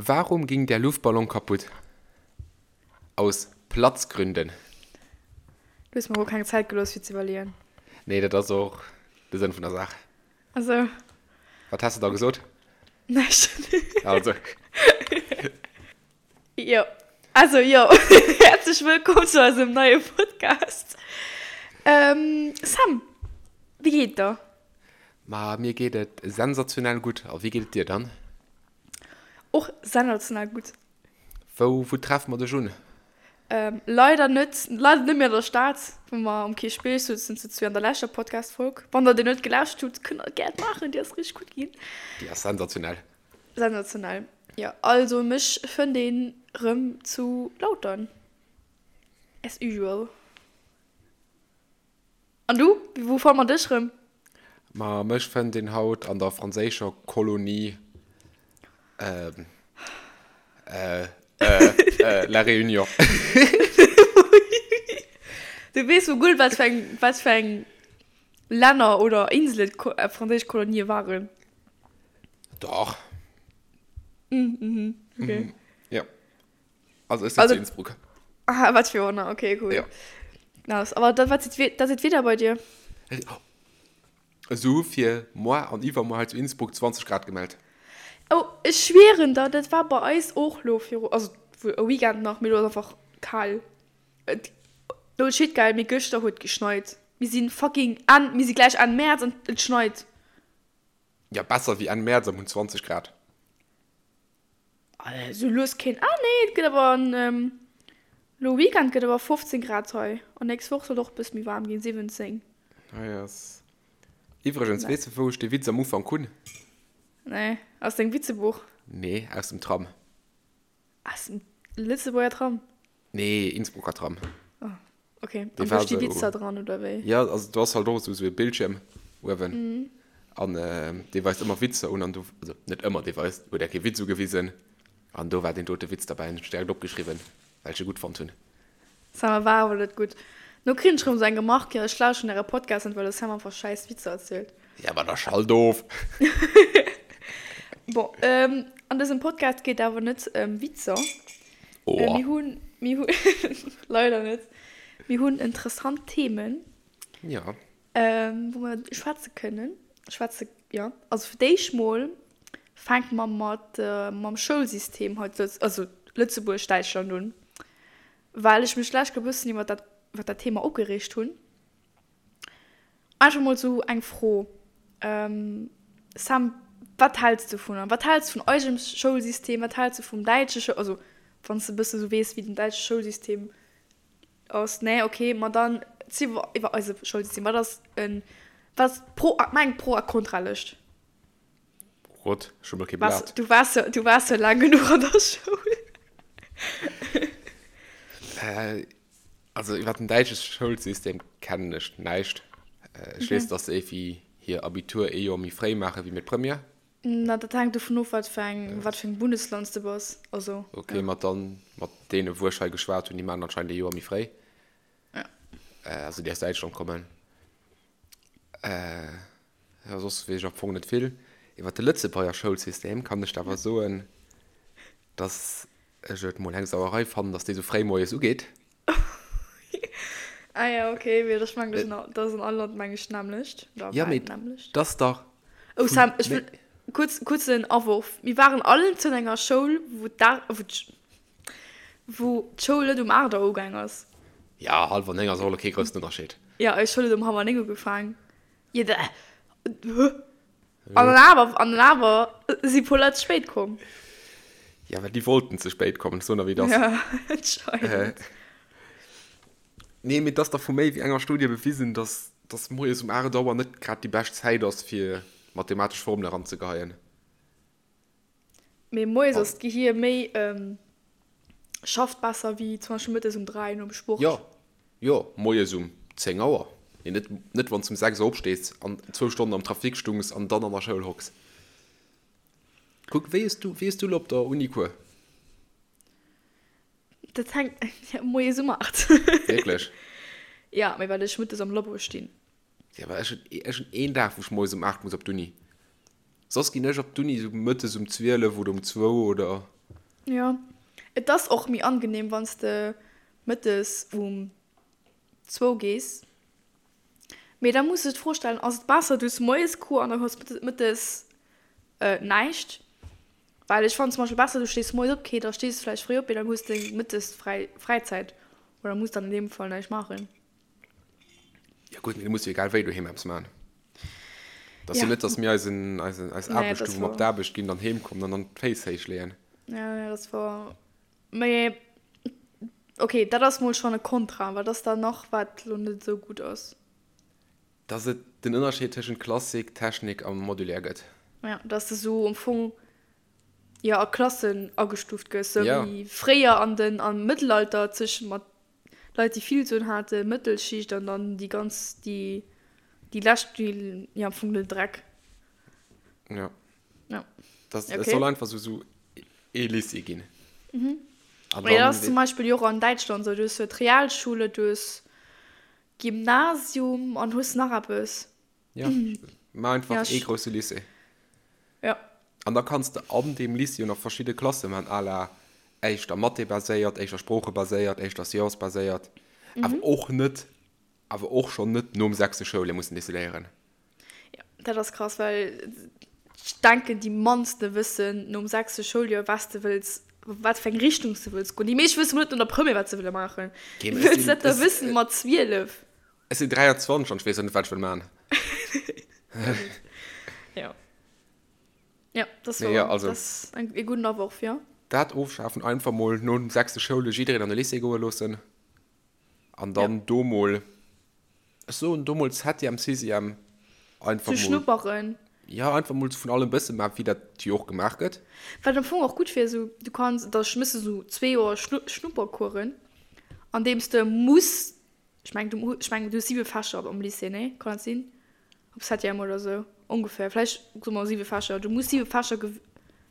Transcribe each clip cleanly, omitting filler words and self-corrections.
Warum ging der Luftballon kaputt? Aus Platzgründen. Du hues mer och keng Zäit gelooss fir ze iwwerleeën. Nee, dat ass och de Sënn vun der Saach. Also. Wat häss de da gesot? Näischt. Also. Jo, also jo, häerzlech wëllkomm zu eisem neie Podcast. Sam, wéi geet et der? Ma mir geet et sensationell gutt. A wéi geet et dir dann? Och sensationell gutt. Wou, wou treffe mer dech un? Leider net, leider net méi an der Stad, wou mer um Kierchbierg souzen zu zwee an der leschter Podcast-Folg. Wann der déi net gelauschtert hutt, kënnt der gär maachen, déi ass richteg gutt ginn. Déi ass sensationell. Sensationell, jo. Also mech fënnt een rëm zu Lautern, as usual. An du? Wou fanne mer dech rëm? Ma mech fënnt een haut an der franséischer Kolonie La Réunion. Du weess wuel gutt, wat fir eng, wat fir eng Länner oder Inselen franséisch Kolonië waren? Dach. Mhm, okay. Jo. Also ech sinn zu Innsbruck. Ah, wat fir Wonner, okay, cool. Ja. Nice. Aber dat, wat sieht, dat sieht wieder bei dir? Esou fir moar an iwwermoar hei zu Innsbruck 20 Grad gemellt. Oh, ech schwieren der, dat war bei eis och lo viru, also e Weekend nach, mee lo ass einfach kal. Et, no shit geil, mee gëschter huet geschneit. Mir sinn fucking Enn, mir si gläich Enn Mäerz an et schneit. Ja, besser wéi Enn Mäerz am hunn 20 Grad. Sou lues keen, ah nee et gëtt awer en lo Weekend gëtt awer 15 Grad hei an nächst Woch soll och bëss méi waarm ginn, 17. Hei ass iwwregens, weess de wou ech dee Witz am Ufank hunn? Nee, aus dengem Witzebuch? Nee, aus dem Tram. Aus dem Lëtzebuerger Tram? Nee, Innsbrucker Tram. Oh, okay. An do sti Witzer dran, oder wéi? Ja, also do ass halt och esou e Bildschierm uewen. Mm. An dee weist ëmmer Witzer un an do, also net ëmmer, dee weist, huet eng Kéier Witz ugewisen an do war deen dote Witz derbäi an hunn ech direkt opgeschriwwen, well ech e gutt fonnt hunn. Sam, war awer net gutt. No kritt ech rëm esou eng Remark, jo ech lauschteren äre Podcast net, well de Sam einfach schäiss Witzer erzielt. Ja, ma da schalt of! Bon, an dësem Podcast geet awer net ëm Witzer. Oh. Mir hunn, mir hunn, leider net. Mir hunn interessant Themen. Ja. Wou mer schwätze kënnen. Schwätze, jo. Also fir d'éischt mol fänke mer mat, mam Schoulsystem hei zu Lëtz-, also Lëtzebuerg, Däitschland un. Well ech mech d'lescht Kéier e bëssen iwwer dat, iwwer dat Thema opgereegt hunn. Einfach mol sou eng Fro, Sam, wat häls de dovunner? Wat häls de vun eisem Schoulsystem? Wat häls de vum däitsche Schoul-, also wann s de e bësse sou weess, wéi den däitsche Schoulsystem ass? Nee, okay, ma dann zi iwwer eise Schoulsystem. Wat ass en, wat ass d'Pro, maach eng Pro a Kontralëscht. Rot, ech hu mol kee Blat. Du waars jo, du waars jo laang genuch an der Schoul. Also iwwer den däitsche Schoulsystem kennen ech näischt. Ech weess, datt se éiwéi hir Abitur ee Joer méi fréi maache wéi mir d'Première. Na, dat hänkt dovun of, wat fir eng, wat fir engem Bundesland s de bass. Also, ja. Okay, mat dann, mat deene wou ech hei geschwat hunn, déi maachen anscheinend ee Joer méi fréi. Ja. Also déi aus Däitschland kommen. Jo, soss weess ech am Fong net vill. Iwwer de Lëtzebuerger Schoulsystem kann ech der awer soen, dass ech et mol eng Sauerei fannen, dass dee sou fréi moies ugeet. Ah ja, okay, mee ech mengen, dat ass an all Land, meng ech, d'nämmlecht. Oder Ja, bal mee d'nämmlecht. 't ass dach Oh vun Sam, ech wëll, kuerz, kuerzen Awurf, Mir waren allen zu enger Schoul, wou d'A, wou d'Sch, wou d'Schoul net um 8 Auer ugaang ass. Ja, hallwer 9 ass och elo kee groussen Ënnerscheed. Ja, eis Schoul huet um hallwer 9 ugefaang. Jo, da, hä? An dann awer, an dann awer si puer Leit ze spéit komm. Ja, well déi wollten ze spéit kommen, ech soen der wéi et ass. Ja, anscheinend. Nee, mee et ass dach vu méi wéi enger Studie bewisen, dass, dass moies um 8 Auer net grad déi bescht Zäit ass, fir mathematesch Formele eranzegeheien. Mee moies ass d'Gehier méi, schafft besser wéi zum Beispill mëttes um 3 nom Sport. Jo, jo, moies um 10 Auer. Mee net, net wann s de um 6 Auer opstees an zwou Stonnen am Trafic stungs an dann an der Schoul hocks. Kuck, wéi hues du, wéi hues du elo op der Uni Cours? Dat hänkt, moies um 8. Wierklech? Ja, mee well ech mëttes am Labo stinn. Ja, well ech hunn, ech hunn een Dag, wou ech moies um 8 muss op d'Uni. Soss ginn ech op d'Uni sou mëttes um 12 oder um zwou oder. Jo, et ass och méi angenehm, wann s de mëttes um zwou gees. Mee da muss ech d'Fro stellen, ass et besser du hues moies Cours an da hues mëttes näischt? Well ech fannen zum Beispill besser du stees moies op, okay da stees de vläicht fréi op, mee dann hues de mëttes fräi Fräizäit oder muss dann an deem Fall näischt maachen. Ja gutt, mee du muss jo egal wéi doheem eppes maachen. Et ass jo net, datt mir eisen, eisen, eis Aarbecht hu wou mer op d'Aarbecht ginn, dann heem kommen an dann d'Féiss héich leeën. Ja, ja, dat ass wouer. Mee okay, dat ass mol schonn e Kontra. Wat ass dann nach, wat lo net esou gutt ass? Dass et den Ënnerscheed tëschent Klassik, Technik a Modulär gëtt. Ja, dass de sou am Fong, jo, a Klassen agestuuft gëss, sou wéi fréier an den, am Mëttelalter zwëschen mat Leit, déi vill Suen haten, Mëttelschicht an dann déi ganz, déi, déi lescht, déi, jo, am Fong den Dreck. Ja. Ja. Das, okay. Es soll einfach so, so ee Lycée ginn. Mhm. An dann, ja, das zum Beispiel jo och an Däitschland so. Du hues jo d'Realschule, du hues Gymnasium an hues nach eppes. Ja, ma einfach ja, ee grousse Lycée. Ja. An da kanns de an deem Lycée jo nach verschidde Klasse man, à la éischter Mathé baséiert, éischter Sprooche baséiert, éischter Science baséiert. Mhm. Awer och net, awer och schonn net nom sechste Schouljoer mussen decidéieren. Ja, dat ass krass, well ech denken déi mannste wëssen nom sechste Schouljoer wat de wëlls, wat fir eng Richtung s de wëlls goen. Déi meescht wësse mol net no der Première wat se wëlle maachen. Wéi wëlls de dat da wëssen mat 12? Ech sinn 23 an ech weess nach net wat ech wëll maachen. Jo. Jo, dat ass wouer. Dat ass e gudden Aworf, jo. Dat ofschafen, einfach mol nom sechste Schouljoer jiddereen an de Lycée goe loossen. An dann do mol, ech soen do mol Septième, Sixième, einfach mol. Ze schnupperen. Jo, einfach mol vun allem e bësse maachen, wéi dat jo och gemaach gëtt. Wat am Fong och gutt wier, esou du kanns, da méchs de esou zwee Joer Schnuppercoursen, andeems de muss, ech mengen du, ech mengen du hues siwe Fächer am Lycée, nee? Kann dat sinn? Op Septième oder esou ongeféier, vläicht soe mer siwe Fächer, du muss siwe Fächer,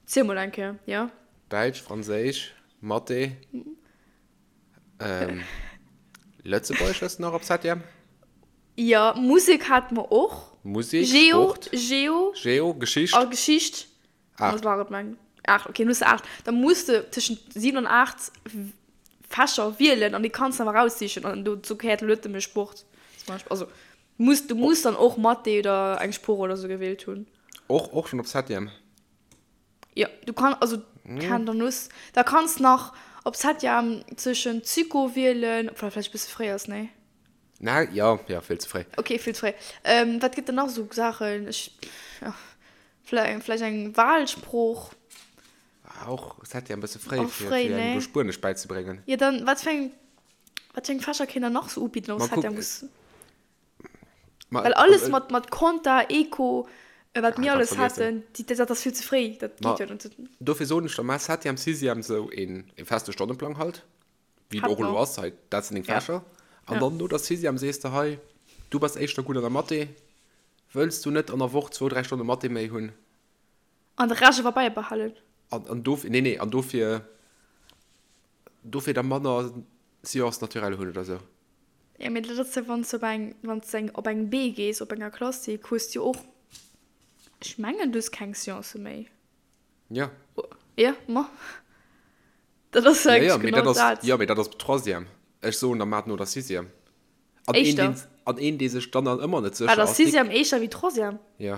ziel mol eng Kéier, jo? Däitsch, Franséisch, Mathé. Ähm, Lëtzebuergesch hues de nach op Septième? Jo, Musek hate mer och. Musek, Geo, Sport, Geo. Geo, Geschicht. A Geschicht. Aacht. Dat war et, mengen aacht, okay, dann hues de aacht. Da muss de tëschent 7 an 8 Fächer wielen an déi kanns de awer eraussichen. An dozou gehéiert elo net nëmme Sport zum Beispill. Also muss, du muss dann och Mathé oder eng Sprooch oder sou gewielt hunn. Och, och schonn op Septième? Jo, du kann, also kann dann hues, da kanns nach op Septième zwëschen Psycho wielen, obwuel dat vläicht e bësse fréi ass, nee? Na, jo, jo, vill ze fréi. Ok, vill ze fréi. Wat gëtt dann nach esou Saachen? Ech, jo, vläicht, vläicht eng Wahlsprooch. Ah, och Septième e bësse fréi, fir, fir engem do Spuenesch bäizebréngen. Jo, dann, wat fir eng, wat fir eng Fächer kéint der nach esou ubidden op Septième? Ma, Well alles mat, mat Compta, Eco, wat mir alles haten, déi, dat ass vill ze fréi. Dat geet jo net. Dofir soen ech der, maach Septième, Sixième esou een, ee feste Stonneplang halt, wéi et och elo ass hei, dat sinn deng Fächer. An dann no der Sixième sees de, hei, du bass éischter gutt an der Mathé, wëlls du net an der Woch zwou, dräi Stonne Mathé méi hunn? An de Rescht awer bäibehalen. An, an dofir, nee, nee, an dofir, dofir da manner Sciences naturelles hunn oder esou. Jo, mee dat ass jo, wann s de op eng, wann s de eng, op eng B gees, op enger Klassik, hues de jo och, ech mengen, du hues keng Sciencë méi. Jo. Jo, ma dat ass jo Ja, ja, eigentlech mee dat genau ass, dat. jo, mee dat ass op Troisième. Ech soen der mat no der Sixième. An een, Éischter. deen, an een, dee sech dann nach ëmmer net sécher Wat ass ass, dee. Sixième éischter wéi Troisième? Jo.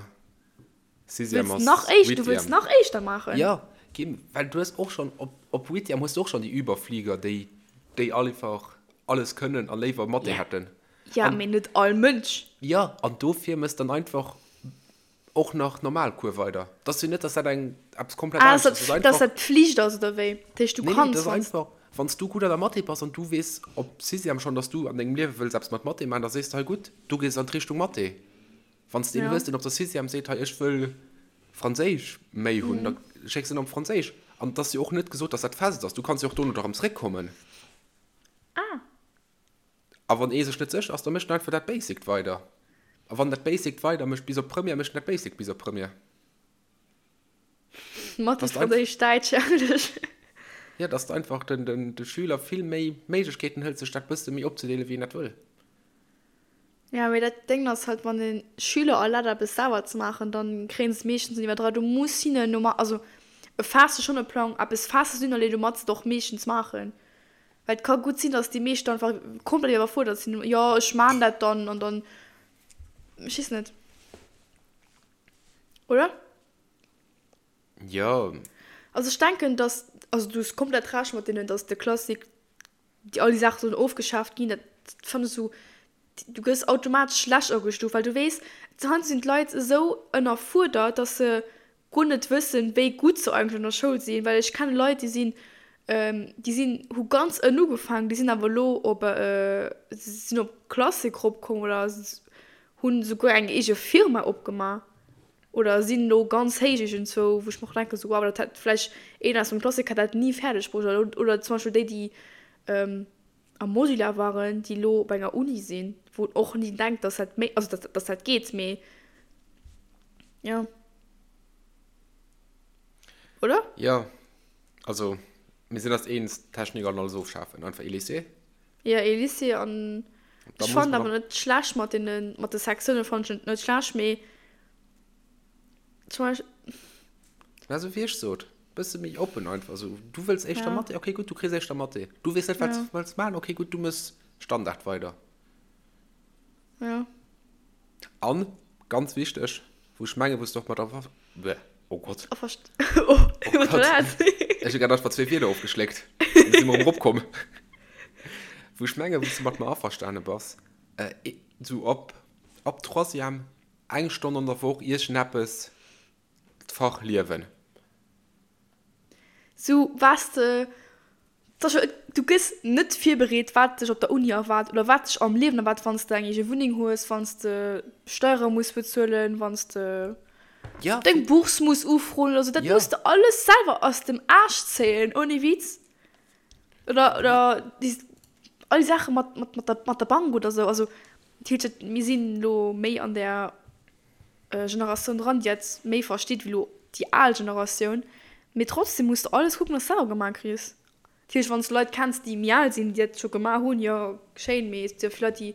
Sixième ass nach éischt, du wëlls nach éischter maachen? Jo, Kim, well du hues och schonn, op, op Huitième hues du och schonn déi Überflieger, déi, déi einfach alles kënnen a léiwer Mathé hätten. Ja, mee net all Mënsch. Jo, an dofir mëss dann einfach och nach normal Cours weider. Et ass jo net, dass dat eng, eppes komplett anescht ass. Ah, dass dat Pflicht ass, oder wéi? Dat heescht, du kanns. Nee, nee, dat ass einfach, wann s du gutt an der Mathé bass an du weess op Sixième schonn, dass du an dengem Liewe wëlls eppes mat Mathé maachen, da sees de, hei gutt, du gees an d'Richtung Mathé. Wann s de een hues, deen op der Sixième seet, hei ech wëll Franséisch méi hunn, da schécks en op Franséisch. An et ass jo och net gesot, dass dat fest ass. Du kanns jo och dono erëm zréckkommen. Ah. A wann ee sech net sécher ass, da mécht en einfach dat Basict weider. A wann dat Basict weider mécht bis op Première, mécht en dat Basict bis op Première. Mathe, Franséisch, Däitsch, Englesch. Jo, dass de einfach den, de Schüler vill méi Méiglechkeeten hëls, sech dat bësse méi opzedeelen, wéi en dat wëll. Ja, mee dat Déng ass halt, wann de Schüler erlaabt eppes selwer ze maachen, dann kréien se et meeschtens net iwwerdra. Du muss hinnen normal, also. Faasse schonn e Plang, eppes Festes hunn, allee domat se et och meeschtens maachen. Well et ka gutt sinn, datt déi meescht einfach komplett iwwerfuerdert sinn, jo ech maan dat dann an dann, ech weess net. Oder? Jo. Also ech denken, datt, also du hues komplett Recht mat deenen, datt de Classique déi all déi Saache sollen ofgeschaaft ginn, dat fannen ech esou, du gëss automatesch schlecht agestuuft, well du weess, heiansdo sinn d'Leit esou ënnerfuerdert, dass se guer net wëssen, wéi gutt se eigentlech an der Schoul sinn, well ech kenne Leit, déi sinn, déi sinn, hu ganz ënnen ugefaangen, déi sinn awer elo op, sinn op Classic eropkomm oder hunn esouguer eng eege Firma opgemaach. Oder sinn elo ganz héich iergendzwou, wou ech mer och denken, esou wow, dat hätt vläicht een aus dem Klassik hätt dat ni fäerdeg bruecht. Oder, oder zum Beispill déi, déi am Modular waren, déi elo op enger Uni sinn, wou een och ni denkt, dass dat méi, also dass, dass dat geet, mee jo. Oder? Jo, also mir sinn eis eens, Technik an alles ofschafen, einfach ee Lycée. Jo, ee Lycée an ech fannen awer net schlecht mat deene, mat de Sektiounen fannen ech net schlecht, mee zum Beispill. Mä esou wéi ech sot, bësse méi oppen einfach esou. Du wëlls éischter Mathé, okay gutt, du kriss éischter Mathé. Du weess net wat s wëlls maachen, okay gutt, du méchs Standard weider. Jo. An, ganz wichteg, wou ech mengen, wou s de och mat aver, bleh, oh Gott. Averst, oh, wat war dat? Ech hu grad einfach zwee Wierder ofgeschléckt, an si mer erëm eropkomm. Wou ech mengen, wou s de mat mer averstane bass, esou ab, ab Troisième, eng Stonn an der Woch iergendeppes, d'Fach Liewen. Sou, was de, du gëss net virbereet, wat dech op der Uni erwaart oder wat dech am Liewen erwaart, wann s de eng eege Wunneng hues, wann s de Steiere muss bezuelen, wann s de deng Bourse muss ufroen oder sou. Dat muss de alles selwer aus dem Aarsch zéien, ohne Witz. Oder, oder déi, all déi Saache mat, mat, mat der, mat der Bank oder sou. Also, natierlech, mir sinn elo méi an där Generatioun dran, déi dat méi versteet wéi elo déi al Generatioun. Mee trotzdem muss de alles kucken, dass de selwer gemaach kriss. Natierlech, wann s de Leit kenns, déi méi al sinn, déi dat scho gemaach hunn, jo, schéin. Mee et si jo vill Leit, déi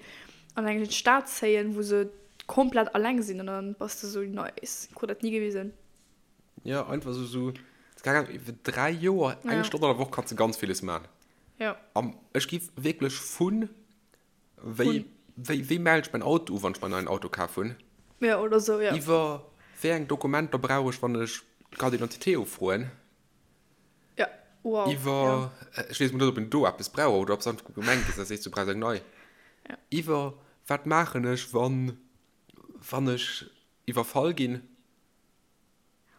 an eng Stad zéien, wou se komplett alleng sinn an dann bass de sou, nice, krut dat ni gewisen. Jo, einfach sou, sou, keng Ahnung, iwwer 3 Joer, eng Stonn an der Woch kanns de ganz villes maachen. Jo. An ech giff wierklech vun Wéi, wéi, wéi mell ech mäin Auto u, wann ech mer en neien Auto kaf hunn? Ja, oder sou, ja. Iwwer wéi eng Dokumenter brauch ech, wann ech d'Carte d'identité ufroen? Ja, wow, Iwwer, ja. ech weess mol net, ob een do eppes brauch oder ob s einfach Gemeng gees a sees, du brauchs eng nei. Ja. Iwwer wat maachen ech, wann, wann ech iwwerfall ginn?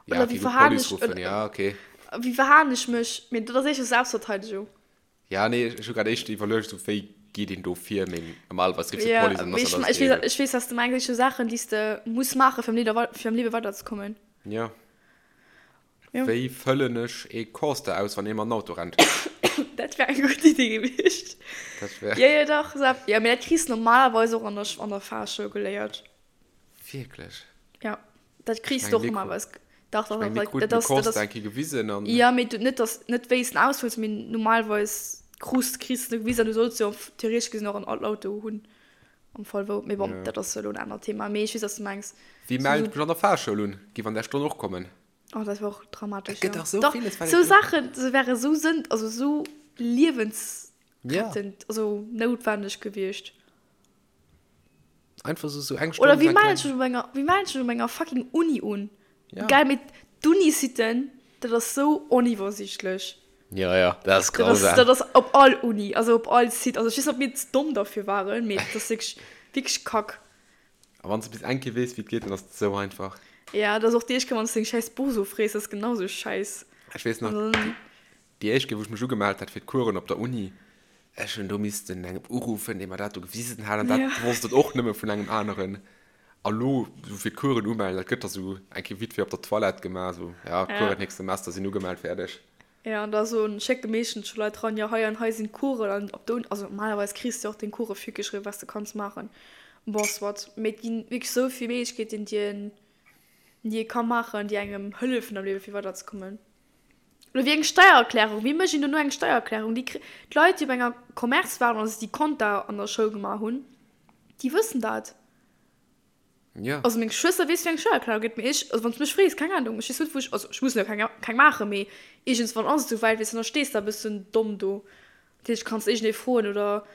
Ja, okay, wéi gutt, verhalen Police ech, ruffen, ja, okay. Wéi verhalen ech mech? Mee dat ass éischter Selbstverteidigung. Ja, nee, ech hu grad éischter iwwerluecht, esou wéi geet een do vir, mee normalerweis riffs du Ja, d'Police an mee dann ass ech, dat alles ech weess, geregelt. ech weess, wat s de mengs. Esou Saachen, déi s de muss maachen, fir am Lieder, fir am Liewe weiderzekommen. Ja. Jo. Wéi fëllen ech ee Coaster aus, wann ee mat Auto rennt? Dat wär eng gutt Iddi gewiescht. Dat wär. Jo, jo, dach, Sepp. Jo, mee dat kriss de normalerweis och an der, an der Fahrschoul geléiert. Wierklech? Ja, dat kriss du och normalerweis. Dach, dach, Ech meng, mir dach, kruten dat de ass, dat Coaster ass. eng Kéier gewisen an. Ja, mee du, net dass, net wéi s den ausfëlls, mee normalerweis krus, kriss de gewisen an du solls jo theoretesch gesinn och en Auto hunn am Fall wou. Mee bon, Ja. dat ass elo en anert Thema. Mee ech weess, wat s du mengs. Wie Sou, mellt sou. mech an der Fahrschoul un? Giff an där Stonn och kommen. Oh, dat wär och dramatesch, Et gëtt jo. dach sou Dach, villes, wat sou een. Saachen, se wäre sou sënn, also sou Ja. liewensrettend, also noutwenneg gewiescht. Einfach so, so eng Oder Stonn wéi eng mellen kleng. ech mech op enger, wéi mellen ech mech op enger fucking Uni un? Ja. Geil, mee d'Uni-Siten, dat ass sou oniwwersiichtlech. Ja, ja, dat ass Dat ass, grausam. dat ass op all Uni, also op all Site. Also ech weess net, ob mir ze domm derfir waren, mee dat ass wierklech, wierklech kack. A wann s de bis eng Kéier weess, wéi et geet, dann ass et sou einfach. Ja, dat ass och déi éischt Kéier, wann s de deng schäiss Bourse ofrees, dat ass genau sou schäiss. Ech weess nach, An dann. Déi éischt Kéier, wou ech mech ugemellt hat fir d'Coursen op der Uni, ech hunn do missten engem uruffen, dee mer dat do gewisen hat, an dat Ja. wosst et och nëmme vun engem aneren. A lo, sou fir d'Coursen umellen, dat gëtt da sou eng Kéier vite fait op der Toilette gemaach, sou, ja, Ja. Coursen nächst Semester sinn ugemellt, fäerdeg. Ja, an da soen, schécke meeschtens scho Leit ran, jo, hei an hei sinn d'Coursen, an op der Uni, also normalerweis kriss de och deng Course virgeschriwwen, wat s de kanns maachen. Bon, soit, mee et ginn wierklech sou vill Méiglechkeeten, déi een, déi ee ka maachen, déi engem hëllefen am Liewe fir weiderzekommen. Oder wéi eng Steiererklärung, wéi mécht een dono eng Steiererklärung? Déi kri, d'Leit, déi op enger Commerce waren, also déi Compta an der Schoul gemaach hunn, déi wëssen dat. Ja. Also meng Schwëster weess wéi eng Steiererklärung geet, mee ech, also wann s du mech frees, keng Ahnung, ech weess net wou ech, also ech muss jo keng keng maachen, mee iergendswann ass et esou wäit, weess de, dann stees de e bëssen domm do. Dat heescht, kanns iergendee froen oder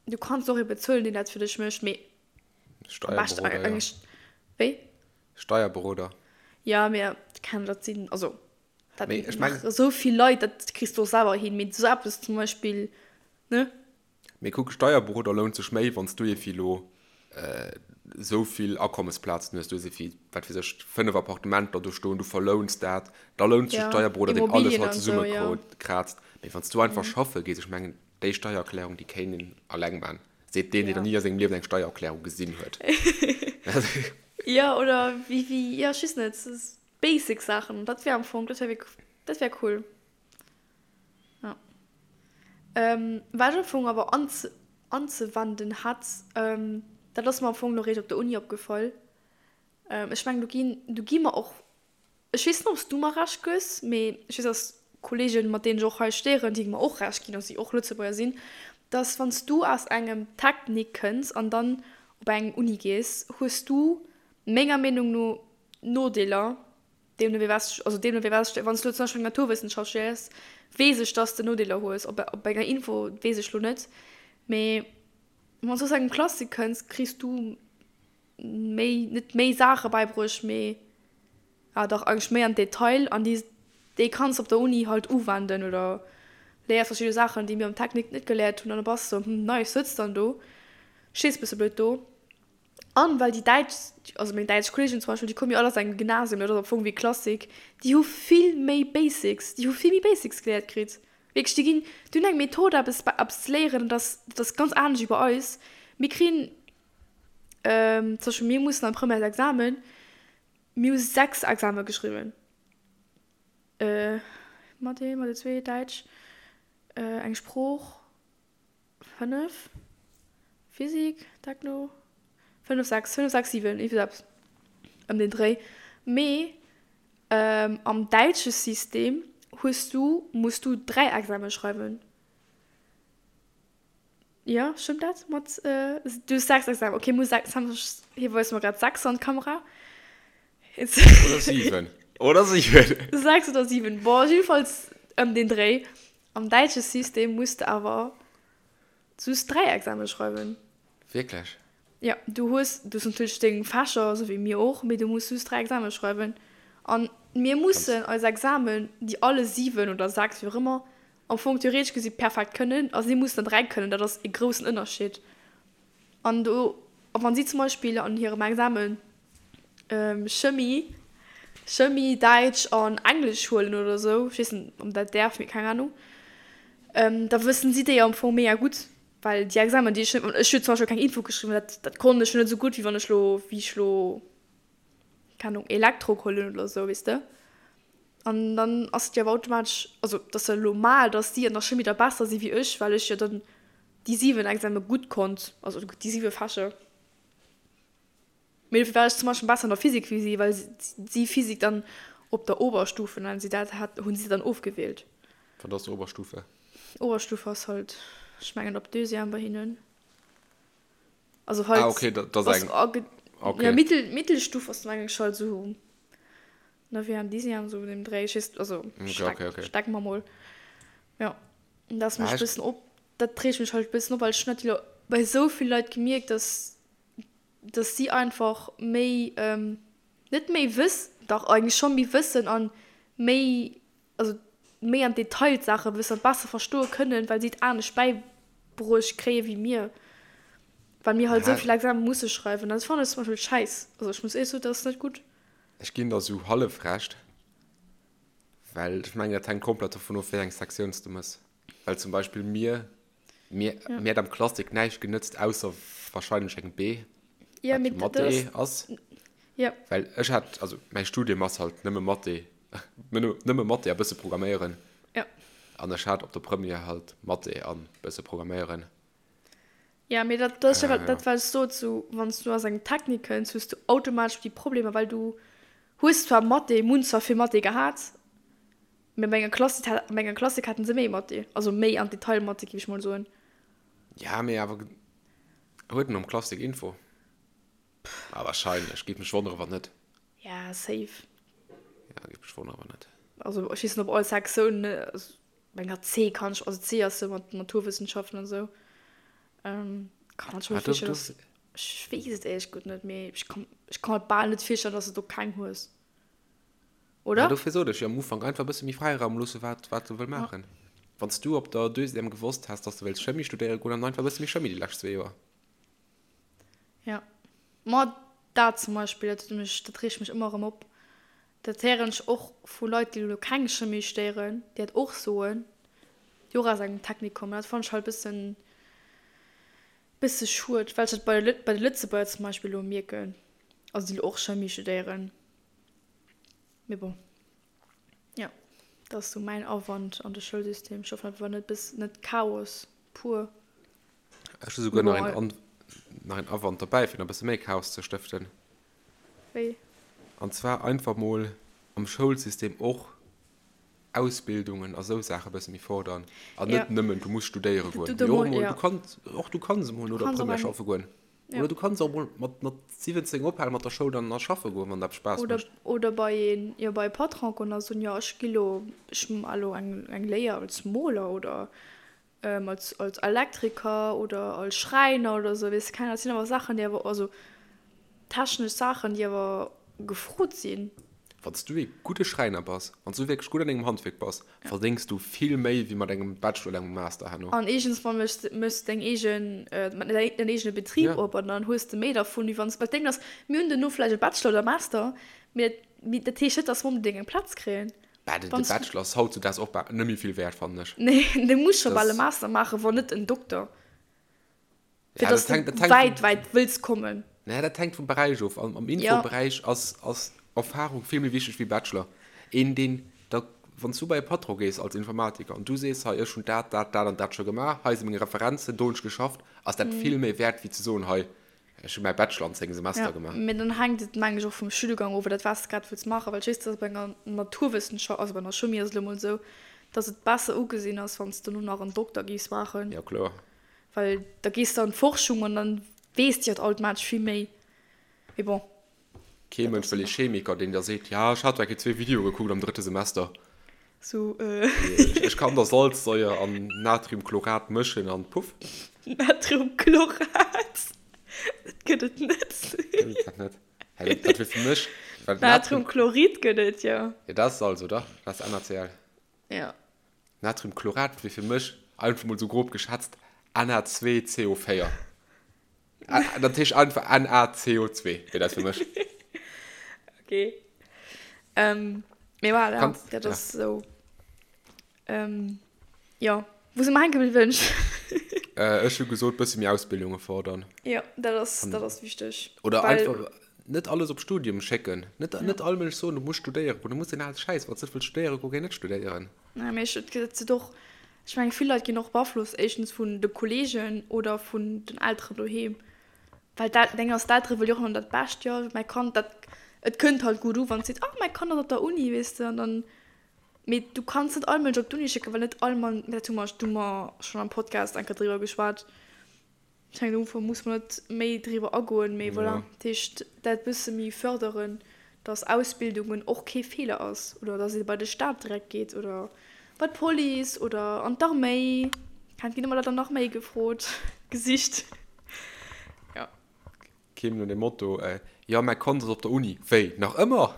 du kanns och ee bezuelen, deen dat fir dech mécht, mee am beschten Steierberoder, ja. eigentlech, wéi? Steierberoder. Ja, mee keng, dat sinn, also dat Mee ech mengen. maache sou vill Leit, dat kriss du och selwer hin, mee esou eppes zum Beispill, ne? Mee kuck, Steierberoder lount sech méi, wann s du evi lo esou vill Akommesplazen hues, du hues evi, wat weess ech, 5 Appartementer do stoen, du verlouns dat, da lount sech Ja, Steierberoder, deen alles Immobilien halt an esou, ja. zesummekraazt. Mee wann s du einfach schaffe gees, ech mengen, déi Steiererklärung, déi kéint een alleng man, seet deen, deen Ja. nach ni a sengem Liewen eng Steiererklärung gesinn huet. Ja, oder wéi, wéi, ja, ech weess net, basic Saachen, dat wär am Fong, dat wär wierk, dat wär cool. Ja. Ähm, wat ech am Fong awer anze, anzewenden hätt, ähm, dat ass mer am Fong lo réischt op der Uni opgefall. Ähm, ech mengen, do ginn, do gi mer och, ech weess net, ob s du mer Recht gëss, mee ech weess, dass Kolleegen, mat deenen ech och hei studéieren, déi mer och Recht ginn, also déi och Lëtzebuerger sinn, dass wann s du aus engem Technique kënns an dann op eng Uni gees, hues du menger Meenung no Nodeeler, Deemno wéi was, also deemno wéi was, wann s du elo zum Beispill eng Naturwëssenschaft studéiers, weess ech, dass de Nodeeler hues. Op, op enger Info weess ech lo net. Mee wann s du aus engem Classique kënns, kriss du méi, net méi Saache bäibruecht, mee ah dach eigentlech méi an Detail an déi, déi kanns de op der Uni halt uwenden oder léiers verschidde Saachen, déi mir am Technique net geléiert hunn an da bass de sou, hm, nice, sëtz dann do, stees bësse blöd do. An well déi däitsch, also meng däitsch Kolleegen zum Beispill, déi komme jo all aus engem Gymnasium, dat ass am Fong wéi Klassik, déi hu vill méi Basics, déi hu vill méi Basics geléiert kritt. Wierklech, déi ginn, déi hunn eng Method eppes, eppes ze léieren, dat ass, dat ass ganz anescht wéi bei eis. Mir kriegen, zum Beispill mir mussen am Premièresexamen, mir hu 6 Exame geschriwwen, Mathé, Mathé 2, Däitsch, eng Sprooch, 5, Physik, Techno, 5, 6, 5, 6, 7, iergendwéi eppes ëm deen Dréi. Mee am däitsche System hues du, muss du 3 Exame schreiwen. Jo, stëmmt dat mat, du hues 6 Examen, okay, muss 6, hie weist mer grad 6 an d'Kamera. Oder 7, oder 7. 6 oder 7, bon, jiddefalls ëm deen Dréi. Am däitsche System muss de awer just 3 Examen schreiwen. Wierklech? Jo, du hues, du hues natierlech deng Fächer, esou wéi mir och, mee du muss just 3 Examen schreiwen. An mir mussen eis Examen, déi alle 7 oder 6, wéi och ëmmer, am Fong theoretesch gesi perfekt kënnen, a si mussen der 3 kënnen. Dat ass e groussen Ënnerscheed. An do, a wann si zum Beispill an hirem Examen Chemie, Chemie, Däitsch an Englesch huelen oder esou, ech weess net, ob dat däerf, mee keng Ahnung, da wëssen si déi am Fong mega gutt, well déi Examen, déi ech net, ech hu zum Beispill keng Info geschriwwen, dat, dat konnt ech jo net esou gutt, wéi wann ech lo, wéi ech lo, keng Ahnung, Elektro geholl hunn oder esou, weess de. An dann ass et jo awer automatesch, also et ass jo normal, datt si an der Chimie da besser si wéi ech, well ech jo dann déi 7 Exame gutt konnt, also déi 7 Fächer. Mee dofir war ech zum Beispill besser an der Physik wéi si, well si Physik dann op der Oberstufe, nennen si dat, hat, hunn si dann ofgewielt. Wat ass Oberstufe? Oberstufe ass halt, ech mengen op Deuxième bei hinnen. Also halt. Ah okay, dat ass eng. Okay. Ja, Mittel, Mittelstufe ass mengen ech halt esou Neuvième, Dixième, esou an deem Dréi. Ech weess, also Okay, okay, okay. steck mer mol. Jo, dat ass mech Ah, e ech. bëssen op, dat reegt mech halt e bëssen op, well ech hunn dat jo bei esou vill Leit gemierkt, dass dass si einfach méi, net méi wëss, dach eigentlech scho méi wëssen an méi, also méi am Detail d'Saache wëssen an besser verstoe kënnen, well si et anescht bäibruecht kréie wéi mir, well mir halt esou vill Exame musse schreiwen. Dat fannen ech zum Beispill schäiss. Also ech muss éierlech soen, dat ass net gutt. Ech ginn der esou hallef Recht, well ech mengen, dat hänkt komplett dovun of, wéi eng Sektioun s de mëss. Well zum Beispill mir, mir, Ja. mir hätt am Klassik näischt genëtzt, ausser wahrscheinlech eng B, Ja, wat mee jo dat ass, Mathé ass. ja. Well ech hat, also mäi Studium ass halt nëmme Mathé, nëmme Mathé a bësse Programméieren. Ja. An ech hat op der Première halt Mathé an bësse Programméieren. Ja, mee dat, dat ass jo Äh, dat, wat ech sot, sou, wann s du aus engem Technik kënns, hues du automatesch déi Problemer, well du hues zwar Mathé, mir hunn zwar vill Mathé gehat, Mee bei enger Klassik, bei enger Klassik haten se méi Mathé, also méi an Detail Mathé, géif ech mol soen. Ja, mee awer huet en am Klassik Info? Ah, wahrscheinlech. Géif mech wonnere wann net. Ja, safe. Ja, géif mech wonnere wann net. Also ech weess net op all Sektioun, also meng hat C kann ech, also C ass jo mat Naturwissenschaften an esou. Ähm, kann man schon ah, virstellen, dass, ech weess et éierlech gutt net, mee ech kann, ech kann mer bal net virstellen, dass de do keng hues. Oder? Ja, dofir sot ech jo am Ufank, einfach e bësse méi Fräiraum loosse wat, wat se wëll maachen. Ja. Wann s du op der Deuxième gewosst häss, dass du wéilts Chimie studéiere goen, dann einfach e bësse méi Chimie déi lescht zwee Joer. Ja. Ma dat zum Beispill, dat huet mech, dat reegt mech ëmmer erëm op. Dat héieren ech och vu Leit, déi elo keng Chimie studéieren, déi dat och soen, déi och aus engem Technik kommen. Dat fannen ech halt e bëssen, bësse schued, well ech dat bei de, bei de Lëtzebuerger zum Beispill elo mierken, also déi elo och Chimie studéieren. Mee bon, jo, dat ass sou mäin Awand an de Schoulsystem. Ech hoffen, dat war net bis net Chaos pur. Ech hu souguer nach een, nach een Awand derbäi, fir nach e bësse méi Chaos ze stëften. Wéi? An zwar einfach mol am Schoulsystem och Ausbildungen a sou Saache bësse méi fordern. An net nëmmen, du muss studéiere goen. Mee och emol, du kanns, och du kanns emol no der Première schaffe goen. Ja. Oder du kanns och mol mat, mat 17 ophale mat der Schoul an a schaffe goen, wann dat Spaass Oder, mécht. oder bei een, jo, bei e Patron goen a soen, jo, ech gi lo, ech ma lo eng, eng Léier als Moler oder als, als Elektriker oder als Schräiner oder sou, weess de, keng Ahnung. Dat sinn awer Saachen, déi awer, also technesch Saachen, déi awer gefrot sinn. Wann s du ee gudde Schräiner bass, wann s du wierklech gutt an dengem Handwierk bass, verdéngs du vill méi wéi mat engem Bachelor oder engem Master herno. An éischtens mol méchs de méchs deng eegen, däin eegene Betrib op an dann hues de méi dervun, wéi wann s, well d'Déng ass, mir hunn duerno vläicht e Bachelor oder Master, mee dat, mee dat heescht net, dass mer onbedéngt eng Plaz kréien. Bah, de Bachelor ass hautzudaags och bal net méi vill wäert, fannen ech. Nee, du muss scho bal e Master maachen, wann net en Dokter. Fir dass du wäit, wäit wëlls kommen. Naja, dat hänkt vum Beräich of. Am Infoberäich ass, ass Erfahrung vill méi wichteg wéi Bachelor. Een, deen da, wann s du bei e Patron gees als Informatiker an du sees, hei, ech hunn dat, dat, dat an dat scho gemaach, hei si meng Referenzen, do hunn ech geschafft, ass dat vill méi wäert wéi ze soen, hei, ech hu mäi Bachelor an 10 Semester gemaach. Mee dann hänkt et, mengen ech, och vum Studiengang of oder wat s de grad wëlls maachen. Well ech weess, dass bei enger Naturwëssenschaft, also bei einer Chimie ass et elo mol esou, dass et besser ugesinn ass, wann s de dono nach en Dokter géifs maachen. Jo, kloer. Well da gees de an d'Forschung an dann weess de jo automatesch vill méi. Mee bon. Kee Mënsch wëll ee Chemiker, deen der seet, ja, ech hat zwar zwee Videoe gekuckt am drëtte Semester. Sou. Ech kann der Salzsäuer an Natriumchlorat mëschen an puff. Natriumchlorat? Dat gëtt et net. Gëtt et dat net? Hä, dat wier fir mech. Natriumchlorid gëtt et, jo. Jo, dat ass Salz, oder? Dat ass NaCl. Jo. Natriumchlorat wier fir mech, einfach mol sou grob geschätzt, Na2CO4. Dat heescht einfach NaCO2 wier dat fir mech. Okay. Ähm, mee voilà, Kanns, dat ass ja. sou. Ähm, jo. Wou si mer hänke bliwwen? Äh, ech hu gesot, bësse méi Ausbildunge fordern. Jo, dat ass, dat ass wichteg. Oder Well, einfach net alles op Studium schécken. Net, ja. net all Mënsch soen, du muss studéieren goen. Du muss den ale Schäiss, wann s net wëlls studéiere goen, géi net studéieren. Nee, mee ech, et gëtt et och, ech mengen, vill Leit ginn och beaflosst, éischtens vun de Kolleegen oder vun den Elteren doheem. Well d'El, deng ass, d'Eltere wëlle jo och ëmmer dat Bescht, jo, mäi Kand, dat, et kënnt halt gutt u, wann s seet, ah, mäi Kand ass op der Uni, weess de, an dann, mee du kanns net all Mënsch op d'Uni schécken, well net all Mann, dat hu mer, do hu mer schonn am Podcast eng Kéier driwwer geschwat, Ech mengen do muss mer net méi driwwer agoen, mee voilà, dat heescht dat bësse méi förderen, dass Ausbildungen och kee Feeler ass oder dass ee bei de Staat direkt geet oder bei d'Police oder an d'Arméi. Et ginn ëmmer Leit an d'Arméi gefrot, gesicht, jo. Keem no dem Motto, Jo, mäi Kand ass op der Uni. Wéi, nach ëmmer?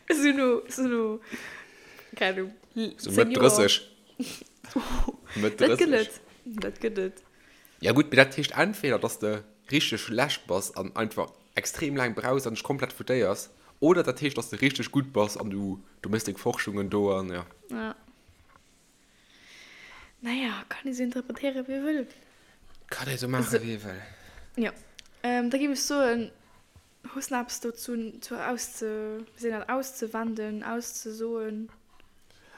Esou no, esou no, keng Ahnung, 10 Joer. Mëtt 30. Mëtt 30. Dat gëtt et, dat gëtt et. Ja gutt, mee dat heescht entweder, dass de richteg schlecht bass an einfach extrem laang brauchs an dech komplett foutéiers, oder dat heescht, dass de richteg gutt bass an du, du méchs deng Forschungen do an ja. Ja. Naja, kann ee sou interpretéieren, wéi ee wëll. Kann ee sou maachen, wéi ee wëll. Jo. Da géif ech soen, hues nach eppes dozou zu ausze, wéi seet een dat, auszewenden, auszesoen?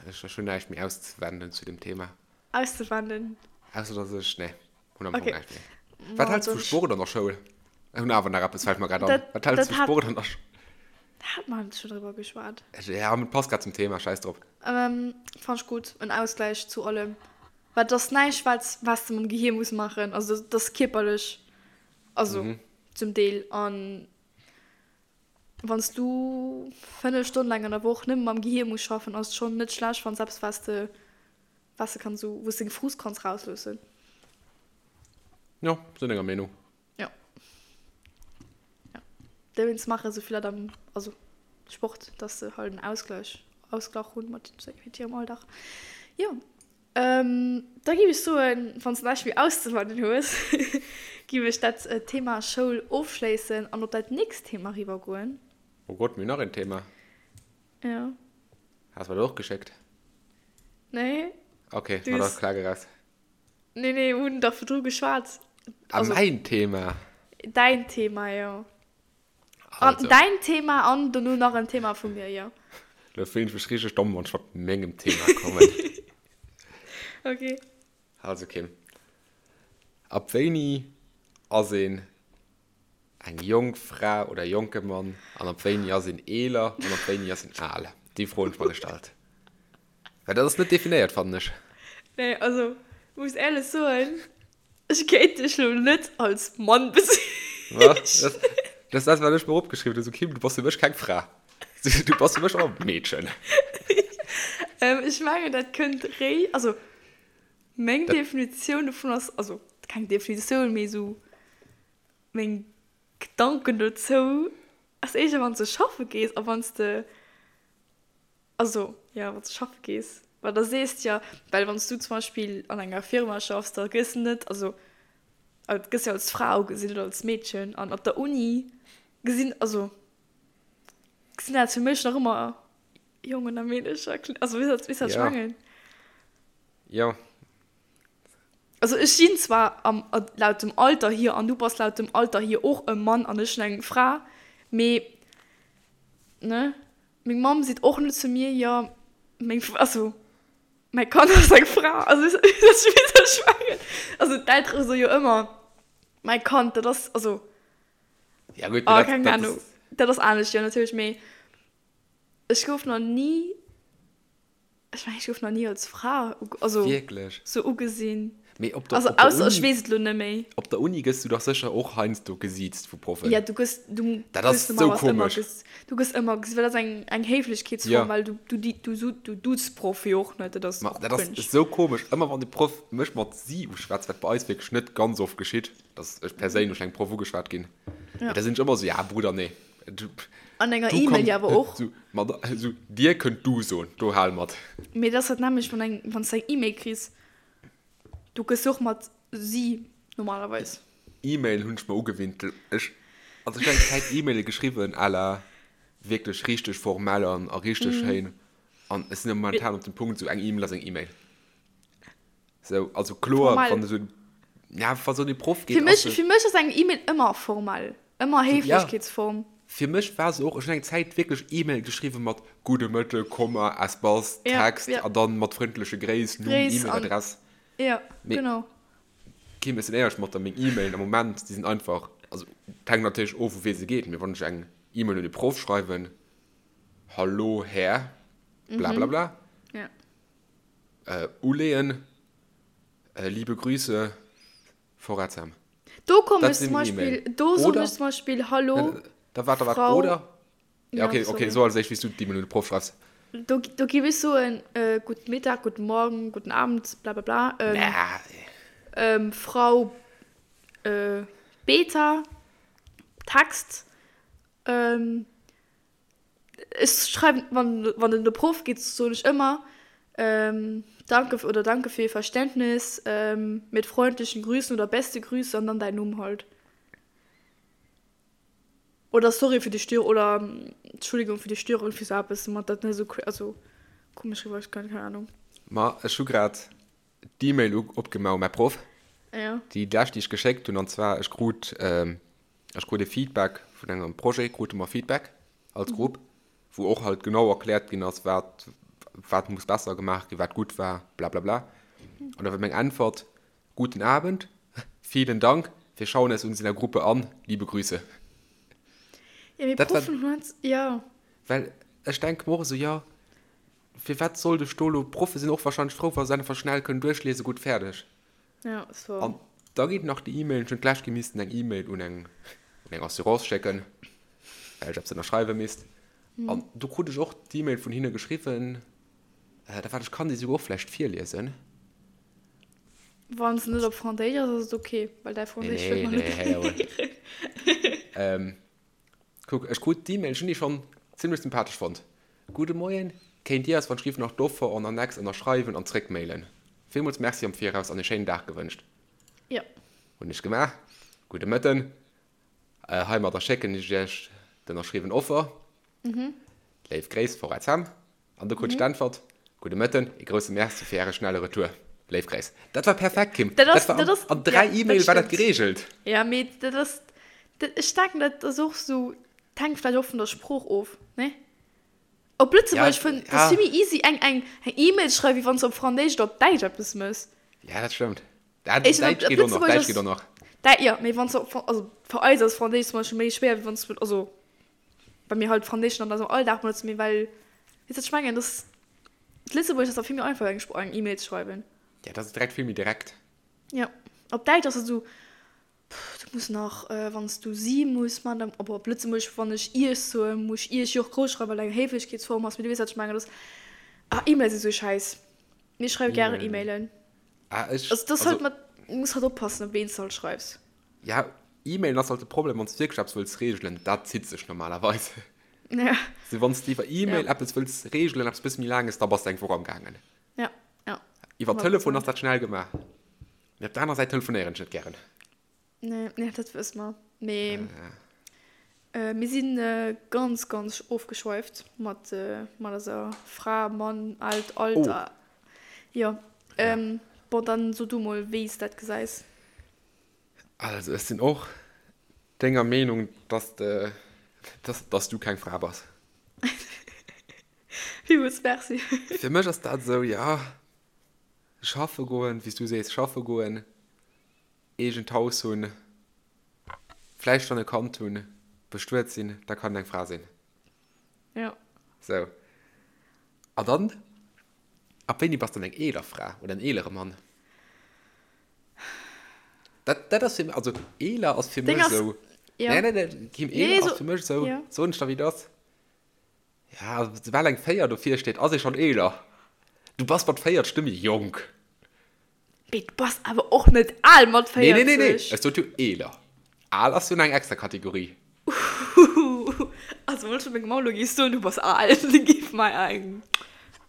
Ech hunn näischt méi auszewenden zu dem Thema. Auszewenden. Ausser dass ech, nee, hunn am Fong näischt méi. Wat häls du vu Sport an der Schoul? Ech hunn awer nach eppes, fält mer grad an. Wat häls du vu Sport an der Schoul? Da hat mer schon driwwer geschwat. Ja, mee passt grad zum Thema, scheiß drop. Ähm, fand ech gutt, en Ausgleich zu allem. Well et ass näischt, wat, wat s de mam Gehier muss maachen, also dat ass kierperlech, also mhm. Zum Deel. An wann s du 5 Stonnen laang an der Woch nëmme mam Gehir muss schaffen, ass et schonn net schlecht, wann s eppes wat s de, wat s de kanns esou, wou s deng Frust kanns rausloossen. Jo, sinn denger Meenung. Jo. Jo. Dowéinst maache sou vill Leit am, also Sport, dass se halt en Ausgleich, Ausglach hunn mat hirem Alldag. Jo. Da giff ech soen, wann s de näischt méi auszewennen hues, giff ech dat Thema Schoul ofschléissen an op dat nächst Thema riwwer goen. Oh Gott, mir hunn nach een Thema. Jo. Has mer dat och geschéckt? Nee. Ok, ma da klag eraus. Nee, nee, mir hunn dach virdru geschwat. Ah, mäin Thema. Däin Thema, jo. An däin Thema an dono nach en Thema vu mir, jo. Lo fillen ech mech richteg domm, wann ech mat mengem Thema kommen. Ok. Also Kim, ab wéini ass een eng jonk Fra oder jonke Mann an ab wéini ass een eeler an ab wéini ass een al? Déi Fro hunn ech mer gestallt. Well dat ass net definéiert, fannen ech. Nee, also muss éierlech soen, Ech kéint dech lo net als Mann bezeechnen. Dat ass dat, wat ech mer opgeschriwwen hunn. Sou, Kim, du bass fir mech keng Fra. Du bass fir mech och e Meedchen. Ech mengen, dat kënnt réi. Also, meng Definitioun dovun ass, also keng Definitioun, mee esou meng Gedanken dozou ass éischter, wann s de schaffe gees a wann s de Also, jo, wann s de schaffe gees, well da sees de jo, well wann s du zum Beispill an enger Firma schaffs, da gëss de net, also et gëss jo als Fra ugesinn oder als Meedchen an op der Uni gesinn, also gesinn dat fir mech nach ëmmer Jongen a Meedercher, also weess wat, weess wat ech mengen? Jo. Also ech sinn zwar am, laut dem Alter hier an du bass laut dem Alter hier och e Mann an ech sinn eng Fra, mee ne? Meng Mamm seet och net zu mir, jo, meng, also mäi Kand ass eng Fra. Also weess du wat ech mengen? Also d'Eltere soe jo ëmmer, mäi Kand, dat ass, also. Ja gutt, mee dat, keng Ahnung, dat ass anescht, jo natierlech, mee ech gouf nach ni. Ech mengen, ech gouf nach ni als Fra also Wierklech? sou ugesinn. Mee op der, Also op der ausser ech Uni, weess et elo net méi. op der Uni gëss du dach sécher och heiansdo gesiezt vu Proffen. Ja, du gëss, du Dat ass gëss sou normalerweis ëmmer komesch. ges, du gëss ëmmer ges, well dat ass eng, eng Héiflechkeetsform, Ja. well du, du, di, du, du, du duuzt d'Proff jo och net, dat ass Ma och dat ass cringe. sou komesch. Ëmmer wann de Proff mech mat si uschwätzt, wat bei eis wierklech net ganz oft geschitt, dass ech perséinlech vun engem Proff ugeschwat ginn, Ja. da sinn ech ëmmer sou, ja Brudder, nee. Du, An enger du E-Mail komm, jo awer och. So, mat, so, dir kënnt du soen, do hal mat. Mee dat ass dat nämmlecht, wann eng, wann s de eng E-Mail kriss, du gëss jo och mat si normalerweis. E-Mail hunn ech mer ugewinnt. Ech, also ech hunn eng Zäit E-Maile geschriwwen à la wierklech richteg formell an a richteg schéin. An ech sinn momentan op dem Punkt, sou eng E-Mail ass eng E-Mail. Sou, also kloer, Formell. wann esou, ja, wa sou de Proff geet, Fir mech, ass se. fir mech ass eng E-Mail ëmmer formell, ëmmer Ja, Héiflechkeetsform. fir mech war se och, ech hunn eng Zäit wierklech E-Mail geschriwwen mat Gudde Mëtteg, Komma, Espace, Ja, Text ja. an dann mat frëndleche Gréiss, Numm, Gréiss an, E-Mail-Adress. ja, Mee genau. Kim, ech sinn éierlech mat der, meng E-Mailen am Moment, déi sinn einfach, also et hänkt natierlech of, u wee se geet, mee wann ech eng E-Mail un e Proff schreiwen, Hallo Här blablabla, Ja. Äh, uleeën. Äh, liebe Grüße, Forazam. Do komm Dat ech zum sinn Beispill, E-Mail. do soen Oder? ech zum Beispill Hallo, Äh, Da wart, da wart, Frau. oder? Ja, Ja, okay, okay, sorry. so als éischt, wéi s du d'E-Mail un de Proff schreifs. Do, do géif ech soen, äh, guten Mittag, guten Morgen, guten Abend, bla bla bla. Ähm, Nah. ähm, Frau äh, Beta, Text, ähm, Ech schreiwen, wann, wann en de Proff geet, soen ech ëmmer, Danke oder Danke für Ihr Verständnis, mit freundlichen Grüßen oder beste Grüße an dann däin Numm halt. Oder sorry für die Störung oder Entschuldigung für die Störung, fir sou eppes, mat dat net esou, also komesch riwwer kënnt, keng Ahnung. Ma ech hu grad d'E-Mail opgemaach u mäi Proff, Ja. déi lescht, déi ech geschéckt hunn, an zwar ech krut, Ech krut e Feedback vun engem Projet, krute mer Feedback als Grupp, wou och halt genau erkläert ginn ass, wat, wat muss besser gemaach ginn, wat gutt war, blablabla. An da war meng Äntwert, Guten Abend, vielen Dank, wir schauen es uns in der Gruppe an, liebe Grüße. Ja, mee Dat war, Proffen hunn halt, ja. well ech denke mer och esou, jo, firwat sollt ech do elo, d'Proffe sinn och wahrscheinlech frou, wa se einfach schnell kënnen duerchliesen, gutt, fäerdeg. Ja, so. An da geet nach déi E-Mail, ech hunn d'lescht gi missten eng E-Mail un eng. un eng Assurance schécken, well ech eppes ënnerschreiwe misst. An do krut ech och d'E-Mail vun hinne geschriwwen, da waart, ech kann déi souguer och vläicht virliesen. Wann se net op Franséisch ass, ass et ok, well däi Franséisch wëll mer net héieren. Kuck, ech krut d'E-Mail, ech hunn déi schonn zimmlech sympathesch fonnt. Gudde Moien, kéint Dir eis wann Schrift nach d'Offer en annexe ënnerschreiwen an zréckmailen? Villmools Merci am Viraus an e schéinen Dag gewënscht. Jo. Hunn ech gemaach. Gudde Mëtten. Heimadder schécken ech Iech d'ënnerschriwwen Offer. Léif Gréiss, Forêt Sam. An do krut ech d'Äntwert, Gudde Mëtten, ee grousse Merci fir Äre schnelle Retour. Léif Gréiss. Dat war perfekt, Kim. Dat ass, Dat war dat ass, an, an 3 ja, dat E-Mail war dat stëmmt. geregelt. Ja, mee dat ass, dat, ech denken, dat ass och sou, dat hänkt vläicht och vun der Sprooch of, ne? Op Ja, Lëtzebuergesch fënn, dat ass ja. vill méi easy, eng, eng, eng E-Mail ze schreiwen, wéi wann s de op Franséisch oder op Däitsch eppes méchs. Ja, dat stëmmt. Dat, Ech, op, Däitsch op geet och nach, Lëtzebuergesch Däitsch geet ass, och nach. Däi, jo, mee wann s de op, also fir eis ass Franséisch zum Beispill méi schwéier, wéi wann s de, also Well mir halt Franséischen an eisem Alldag benotzen, mee well, weess wat ech mengen, dass d'Lëtzebuergesch ass da vill méi einfach eng eng E-Mail ze schreiwen. Ja, dat ass direkt vill méi direkt. Ja, op Däitsch ass et esou, pff, du muss nach, wann s du si muss man, dann, op op Lëtzebuergesch, wann ech iech soen, muss ech iech jo och grouss schreiwen, well et eng Héiflechkeetsform ass, mee du weess wat ech mengen, dass, ah, E-Mails si sou schäiss. Mir schreiwe gären E-Mailen. E-Mailen. Ah, ech, Also, dass also. halt mat, du muss halt oppassen, op ween s de halt schreifs. Ja, E-Mailen ass halt de Problem, wann s du wierklech eppes wëlls reegelen, dat zitt sech normalerweis. Ja. Also wann s du iwwer E-Mail Ja. eppes wëlls reegelen, eppes bësse méi Laanges, da bass de eng Woch am gaangen. Ja, ja. Iwwer 100 Telefon ass Prozent. dat schnell gemaach. Mee op der aner Säit telefonéieren ech net gären. Nee, nee, dat wësse mer. Mee mir si ganz, ganz ofgeschweift mat, mat eiser Fra, Mann, Alt, Alter. Oh. Jo. Ja. Bon, dann so du mol, wéi s dat gesäis. Also ech sinn och denger Meenung, dass de, dass, dass du keng Fra bass. Villmools Merci. Fir mech ass dat esou, ja, schaffe goen, wéi s du sees, schaffe goen, eegent Haus hunn, vläicht schonn e Kand hunn, bestuet sinn, da kann een eng Fra sinn. Ja. Sou. A dann, ab wéini bass dann eng eeler Fra oder en eelere Mann? Dat, dat ass fir mech, also eeler ass fir mech esou. Ja. Nee, nee, nee, Kim, eeler nee, ass so, fir mech esou, ja. soen ech der wéi et ass. Ja, soubal eng 4 dovir steet, ass ee schonn eeler. Du bass mat 40 net méi jonk. Mee du bass awer och net al mat 40. Nee, nee, nee, nee, ech sot jo eeler. Al ass jo nach eng extra Kategorie. Also wann ech zu mengem Mamm elo géif soen, du bass al, da géif mei eng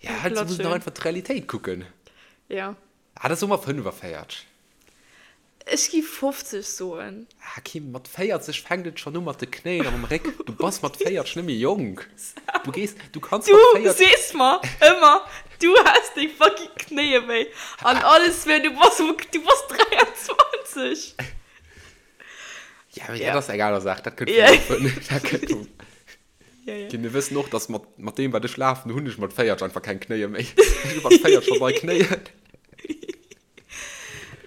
Ja, halt, du muss nach einfach d'Realitéit kucken. Ja. Ah, da soe mer 45. Ech gi 50 soen. Ah, Kim, mat 40 fänkt et schonn u mat de Knéien a mam Réck. Du bass mat 40 net méi jonk. Du gees, du kanns Du mat 40. sees mer ëmmer, du häss déi fucking Knéie wéi an alles wéi, du bass, du bass 23. Ja, mee Ja. dat ass eng aner Saach, dat kënnt Ja. vum Lafen. Dat kënnt vum. Ja, ja. Kim, mir wëssen och, dass mat, mat deem, wat ech lafen, hunn ech mat 40 einfach keng Knéie méi. Ech hu mat 40 scho nei Knéien.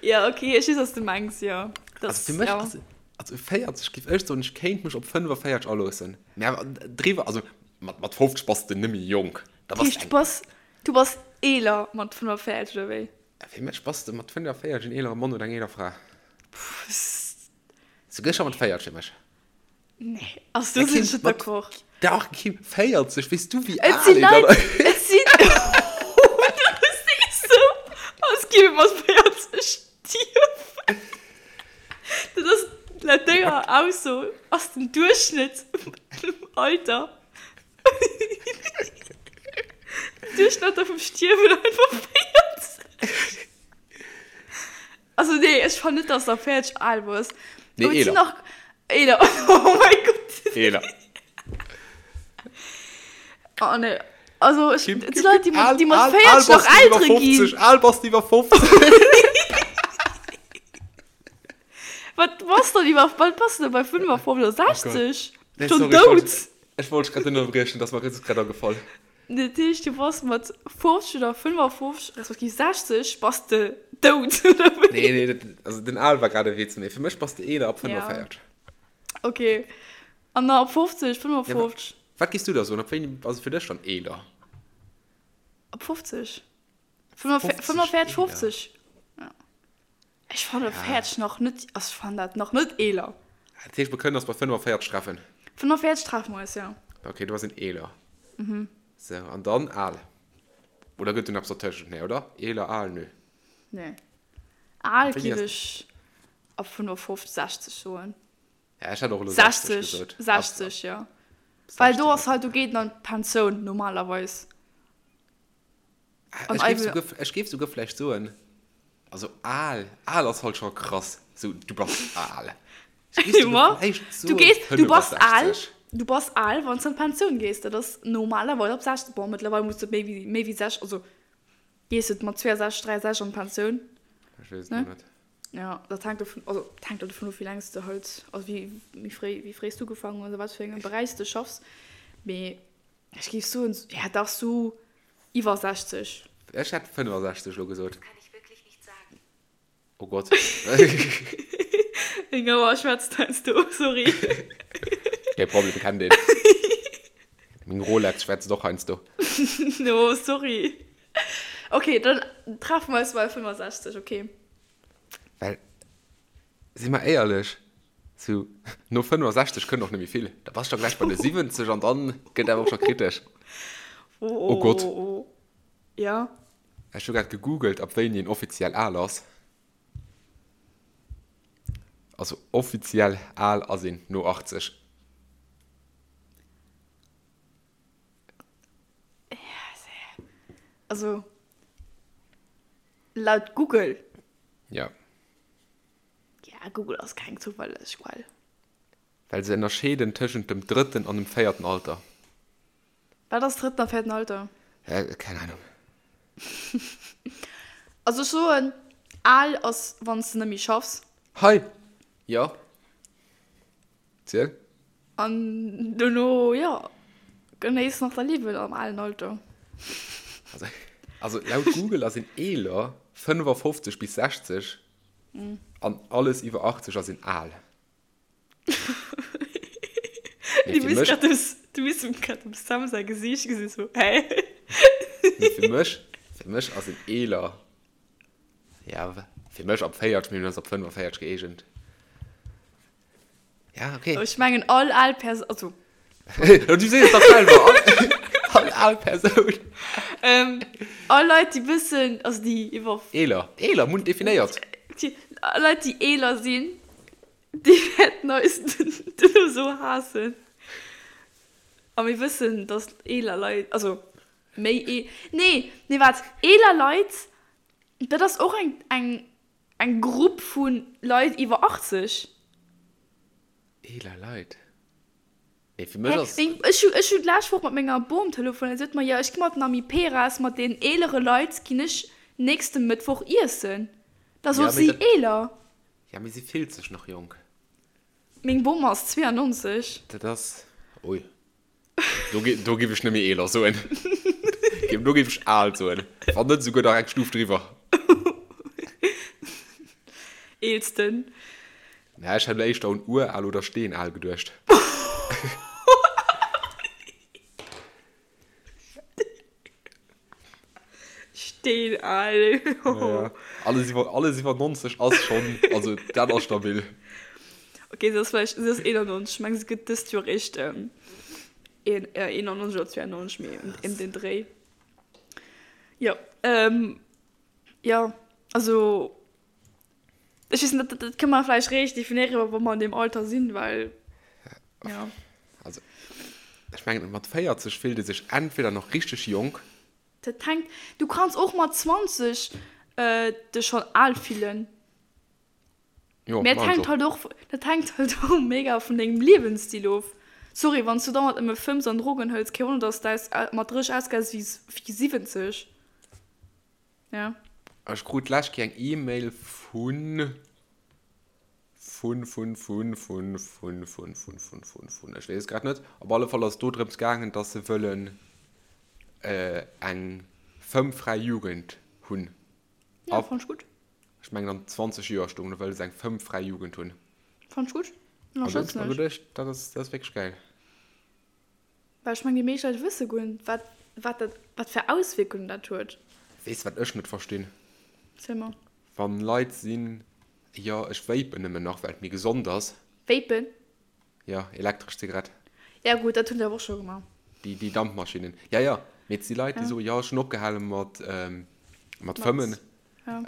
Ja, okay, ech weess, was du mengs, jo. Also Das, fir mech ja. ass, also 40 giff ech soen, ech kéint mech op 45 aloossen. Mä awer driwwer, also mat, mat 50 bass de nëmme jonk. Da bass Heescht, de du eng. bass, du bass eeler mat 45, oder wéi? Fir mech bass de mat 45 en eelere Mann oder eng eeler Fra. Pff, Souguer scho mat 40 fir mech. Nee, also do sinn ech net d'accord. Dach, Kim, 40, weess du wéi Et al si een dann Leit, et sinn, du sees sou, als géif ee mat 40 stierwen. Dat ass, laut denger Ausso ass den Duerchschnëtt Alter, Duerchschnëtter vum Stierwen einfach 40. Also nee, ech fannen net, dass der 40 al bass. Nee, Aber et sinn eeler. nach eeler. Oh mein Gott. Eeler. Oh nee. Also ech, Kim, et Kim, si Leit, déi Kim, mat, al, déi mat al, 40 al nach bass du iwwer Eltere ginn. 50, al bass du iwwer 50. Wat bass dann iwwer, wat bass du denn bei 55 oder 60? Nee, Schon sorry, ech wollt, dout. ech wollt dech grad ënnerbriechen, dat ass mer just grad agefall. Dat heescht, du bass mat 50 oder 55, respektiv 60, bass de dout, oder wéi? Nee, nee, dat, also den Al war grad e Witz, mee fir mech bass de eeler ab 45. Ja. Okay. An da ab 50, 55? Ja, wat giss du da soen? Ab wéini ass et fir dech dann eeler? Ab 50. 45, 50. Ja. Ech fanne 40 nach net, also ech fannen dat nach net eeler. Dat heescht, mer kënnen eis bei 45 treffen. 45 treffe mer eis, jo. Ok, do ass een eeler. Mhm. Sou, an dann al. Oder gëtt do nach eppes dertëschent? Nee, oder? Eeler, al, nö. Nee. Al géif ech ab 55, 60 soen. Ja, ech hätt och elo 60 gesot. 60, jo. Well do ass halt, do geet een an d'Pensioun normalerweis. Ech géif souguer, ech géif souguer vläicht soen, also al, al ass halt scho krass, sou du bass al. Ech géif souguer vläicht soen, Du gees, du bass al, du bass al, wann s de an d'Pensioun gees. Dat ass normalerweis ab 60, bon, mëttlerweil muss de méi wéi, méi wéi 60, also gees de mat 62, 63 an d'Pensioun. Ech weess et net. Ja, dat hänkt dovun, also dat hänkt dovun of, wéi laang s de halt, also wéi, wéi fréi, wéi fréi s du ugefaangen hues a wat fir engem Beräich s de schaffs. Mee ech géif soen, ja dach sou iwwer 60. Ech hätt 65 elo gesot. Oh Gott. Meng Auer schwätzt heiansdo, sorry. Kee Problem, kennt een. Meng Rolex schwätzt och heiansdo. No, sorry. Ok, dann treffen mer eis bei 65, ok. Well, si mer éierlech, sou no 65 kënnt och net méi vill. Da bass de scho gläich bei de 70 an dann gëtt awer och scho kritesch. Oh Gott. Ja. Ech hu grad gegoogelt, ab wéini een offiziell al ass. Also offiziell al ass een no 80. Also laut Google. Ja. Ja, Google ass keng zouverlässeg Quell. Well se ënnerscheeden tëschent dem drëtten an dem véierten Alter. Wat ass drëtten a véierten Alter? Keng Ahnung. Also ech soen, al ass wann s de net méi schaffs. Hei! Jo. Ziel. An dono, jo, genéiss nach däi Liewen am alen Alter. Also, also laut Google ass een eeler 55 bis 60 an alles iwwer 80 ass een al. Du misst grad dem, du misst grad dem Sam säi Gesiicht gesinn, sou, hä? Mee fir mech, fir mech ass een eeler, ja, fir mech ab 40, mee mir hunn eis op 45 gëeegent. Ja, okay. Ech mengen all al Persoun, also. Du sees et dach selwer, all, all al Persoun. Ähm, all Leit, déi bëssen, also déi iwwer. Eeler, eeler, mir hunn et definéiert. Déi, all Leit, déi eeler sinn, déi wäerten eis duerno sou haassen. A mir wëssen, dass eeler Leit, also méi ee, nee, nee, waart, eeler Leit, dat ass och eng, eng, Eng Grupp vu Leit iwwer 80. Eeler Leit? Nee, fir mech ass. Ech hu, ech hu d'lescht Woch mat menger Bom telefonéiert. Si huet mer, jo, ech gi mat den Amiperas, mat den eelere Leit ginn ech nächste Mëttwoch iessen. Da sot si, eeler. Ja, mee si fillt sech nach jonk. Meng Bom ass 92. Dat ass, ui. Do, do géif ech net méi eeler soen. Do géif ech al soen. Wann net esouguer nach eng Stuf driwwer. Eelsten. Na, ech hätt elo éischter un ural oder steenal geduecht. Steenal. Ja, alles iwwer, alles iwwer 90 ass schonn, also dat ass stabil. Okay, se ass vläicht, se ass 91, ech meng se gëtt dëst Joer eréischt ähm, een, äh, 91 oder 92, mee ëm, ëm den Dréi. Jo, ähm, jo, also ech weess net, dat, dat kënne mer vläicht réischt definéieren, wa mer an deem Alter sinn, well, ja. Also, ech mengen, mat 40 fillt ee sech entweder nach richteg jonk. Dat hänkt, du kanns och mat 20 äh, dech schonn al fillen. Jo, Mee dat hänkt halt och, dat hänkt halt och mega vun dengem Liewensstil of. Sorry, wann s du dauernd nëmme fëmms an Drogen hëls, kee Wonner, dass s de mat 30 ausgesäis wéi 70. Ja. Ech krut d'lescht Kéier eng E-Mail vun, vun, vun, vun, vun, vun, vun, vun, vun, vun, vun, ech weess et grad net. Op alle Fall ass et do drëms gaangen, dass se wëllen eng fëmmfräi Jugend hunn. Ja, fannt ech gutt. Ech mengen an 20 Joer stoung do, wëll se eng fëmmfräi Jugend hunn. Fannt ech gutt. An do hunn ech mer geduecht, dat ass, dat ass wierklech gäil. Well ech mengen, déi meescht Leit wësse guer net, wat, wat dat, wat fir Auswierkungen dat huet. Weess de, wat ech net verstinn? Ziel mer. Wann Leit sinn, jo, ech vapen nëmmen nach, well et méi gesond ass. Vapen? Jo, elektresch Zigarett. Ja gutt, dat hunn se awer och scho gemaach. Déi, déi Dampmaschinnen. Ja, ja, mee et si Leit, déi soen, jo, ech hunn opgehale mat, mat fëmmen,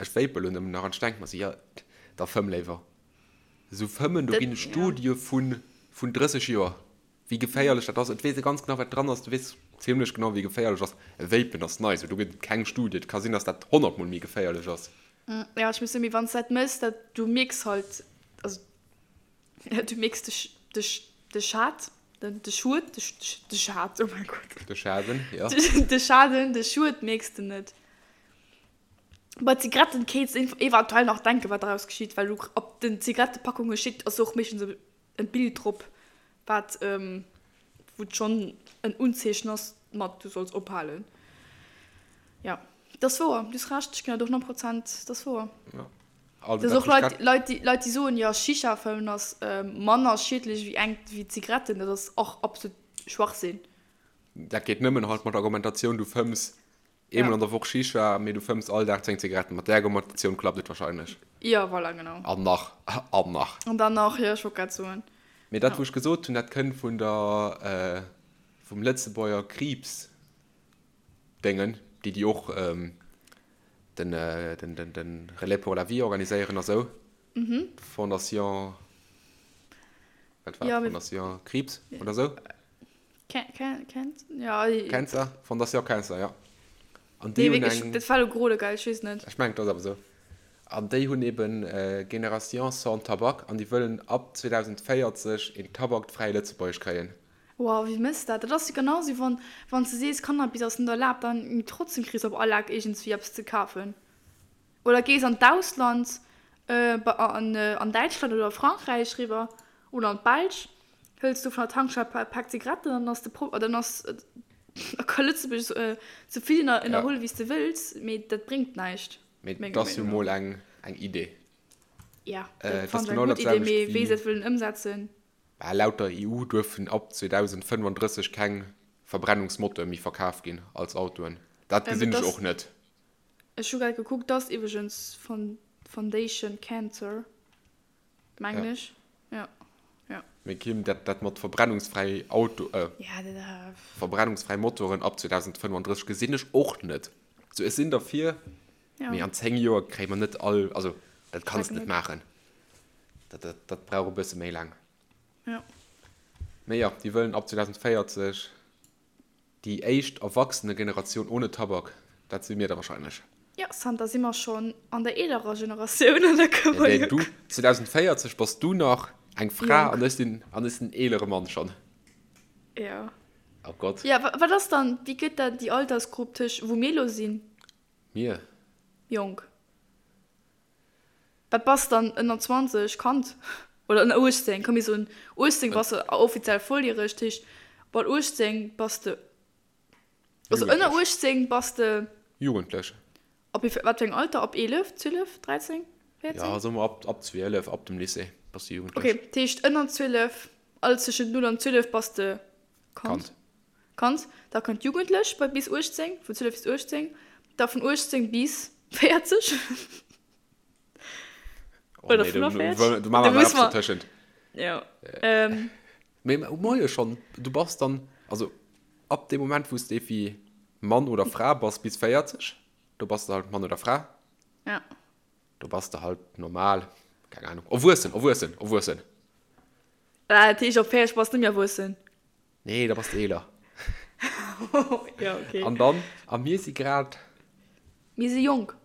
ech vape elo nëmmen nach. An ech denke mer esou, jo, da fëmm léiwer. Esou fëmmen, do ginn et Studie vun, vun 30 Joer, wéi geféierlech dat ass. Et weess ee ganz genau, wat dran ass. Du weess zimlech genau, wéi geféierlech ass. E Vapen ass nei, esou do gëtt et keng Studie. Et ka sinn, dass dat honnertmol méi geféierlech ass. Ja, ech muss soen, mee wann s de dat méchs, dat, du mierks halt, also Du mierks de, de, de Schad, den, de Schued, de, de Schad, oh mein Gott. De Schaden, ja. De Schaden, de Schued mierks de net. Bei Zigaretten kéints de eventuell nach denken, wat daraus geschitt, well du op den Zigarettepackungen steet, ass och meeschtens e Bild drop, wat, wou et schonn en Unzeechen ass mat du solls ophalen. Ja, dat ass wouer, du hues Recht, ech ginn der do 100 Prozent, dat ass wouer. Ja. Also, dat ass och Leit, Leit, déi, Leit, déi soen, jo, Shisha fëmmen ass manner schiedlech wéi eng, wéi Zigaretten, dat ass och absolut Schwachsinn. Dat geet nëmmen halt mat der Argumentatioun, du fëmms eemol an der Woch Shisha, mee du fëmms all Dag 10 Zigaretten. Mat där Argumentatioun klappt et wahrscheinlech. Jo, voilà, genau. An nach, an nach. An dann nach, jo, ech wollt grad soen. Mee dat, wou ech gesot hunn, dat kënnt vun der, vum Lëtzebuerger Kriibsdéngen, déi déi och den, den, den, den Relais pour la vie organiséieren a sou. Mhm. Fondation, wat war ja, Fondation Kriibs oder sou? Kennt, ja. Cancer, Fondation Cancer, ja. An déi nee, hunn eng. Dat war lo grode geil, ech weess net. Ech mengen, dat ass awer sou. An déi hunn eben Génération sans tabac an déi wëllen ab 2040 een tabakfräi Lëtzebuerg kréien. Wow, wéi mëss dat? Dat ass jo genau sou wann wann s de sees Cannabis ass net erlaabt, dann trotzdem kriss op all Eck iergendswéi eppes ze kafen. Oder gees an d'Ausland, an an Däitschland oder Frankräich riwwer oder an d'Belsch, hëls do vun der Tankstell e Pak Zigaretten an dann ass de Pro dann ass da ka Lëtzebuerg sou vill ënnerhuelen wéi s de wëlls, mee dat bréngt näischt. Mee dat ass jo mol eng eng Idee. Ja, dat fannen ech eng gutt Idee, mee wéi se dat wëllen ëmsetzen. Bah, laut der EU duerfen ab 2035 keng Verbrennungsmoteure méi verkaf ginn als Autoen. Dat gesinn ech och net. Ech hu grad gekuckt, dat ass iwwregens Foundation Cancer, mengen ech. Jo, jo. Mee Kim, dat, dat mat verbrennungsfräi Auto, verbrennungsfräi Motoren ab 2035 gesinn ech och net. Sou, ech sinn derfir, mee an 10 Joer kréie mer net all, also dat kanns de net maachen. Dat, dat, dat brauch e bësse méi laang. Ja. Mee jo, déi wëllen ab 2040 déi éischt Erwachsenegeneratioun ohne Tabak. Dat si mir da wahrscheinlech. Ja, zanter si mer schonn an der eelerer Generatioun an da kënne mer jo. Du, 2040 bass du nach eng Fra an ech sinn, an ech sinn eelere Mann schonn. Ja. Oh Gott. Ja, wat ass dann, wéi gëtt dat déi Altersgrupp tëscht, wou mir elo sinn? Mir? Jonk. Wat bass dann ënner 20, Kand? Oder ënner 18, komm mir soen 18 bass de offiziell volljäreg, dat heescht mat 18 bass de, also ënner 18 bass de. Jugendlech. Ab wéi, wat fir engem Alter? Ab 11, 12, 13, 14? Ja, soe mer ab, ab 12, ab dem Lycée bass de jugendlech. Ok, dat heescht ënner 12, alles tëschent 0 an 12 bass de Kand. Kand. Da kënnt jugendlech bei bis 18, vun 12 bis 18, da vun 18 bis 40. Oh, Oder nee, 45. Du, du, du muss man tëschent. Ja. Ähm. Mee moie schon, du bass dann, also ab dem Moment, wou s de wéi Mann oder Fra bass bis 40, do bass de halt Mann oder Fra. Ja. Do bass de halt normal, keng Ahnung, erwuessen, erwuessen, erwuessen. Ah, dat heescht, op 40 bass de net méi erwuessen? Nee, da bass de eeler. Ja, okay. An dann, a mir si grad. Mir si jonk.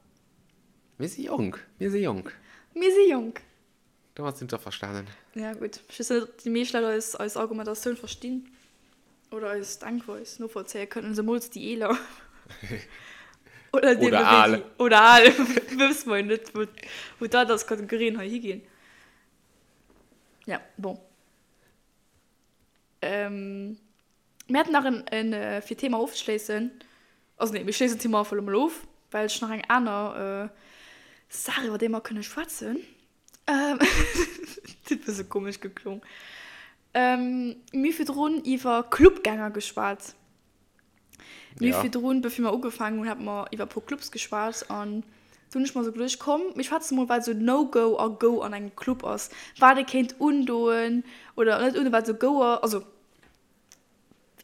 Mir si jonk, mir si jonk. Mir si jonk. Domat sinn d'Averstanen. Ja, gutt. Ech weess net, ob déi meescht Leit eis, eis Argumentatioun verstinn oder eis Denkweis novollzéie kënnen, zemools déi Eeler. Oder deemno Oder al. wéi déi, oder al, wësse mer jo net, wou, wou d'Alterskategorien hei higinn. Ja, bon. Mir haten nach en, en, fir d'Thema ofzeschléissen, also nee, mir schléissen d'Thema einfach elo mol of, well ech nach eng aner Saach, iwwer déi mer kënne schwätzen. Dat huet e bësse komesch geklong. Mir hu virdrun iwwer Clubgänger geschwat. Mir hu virdrun, bevir mer ugefaangen hunn, hate mer iwwer e puer Clubs geschwat an. Do hunn ech mer esou geduecht, komm mir schwätze mol wat esou No-Go a Go an engem Club ass, wat ee kéint undoen oder net undoen, wat esou Go ass, also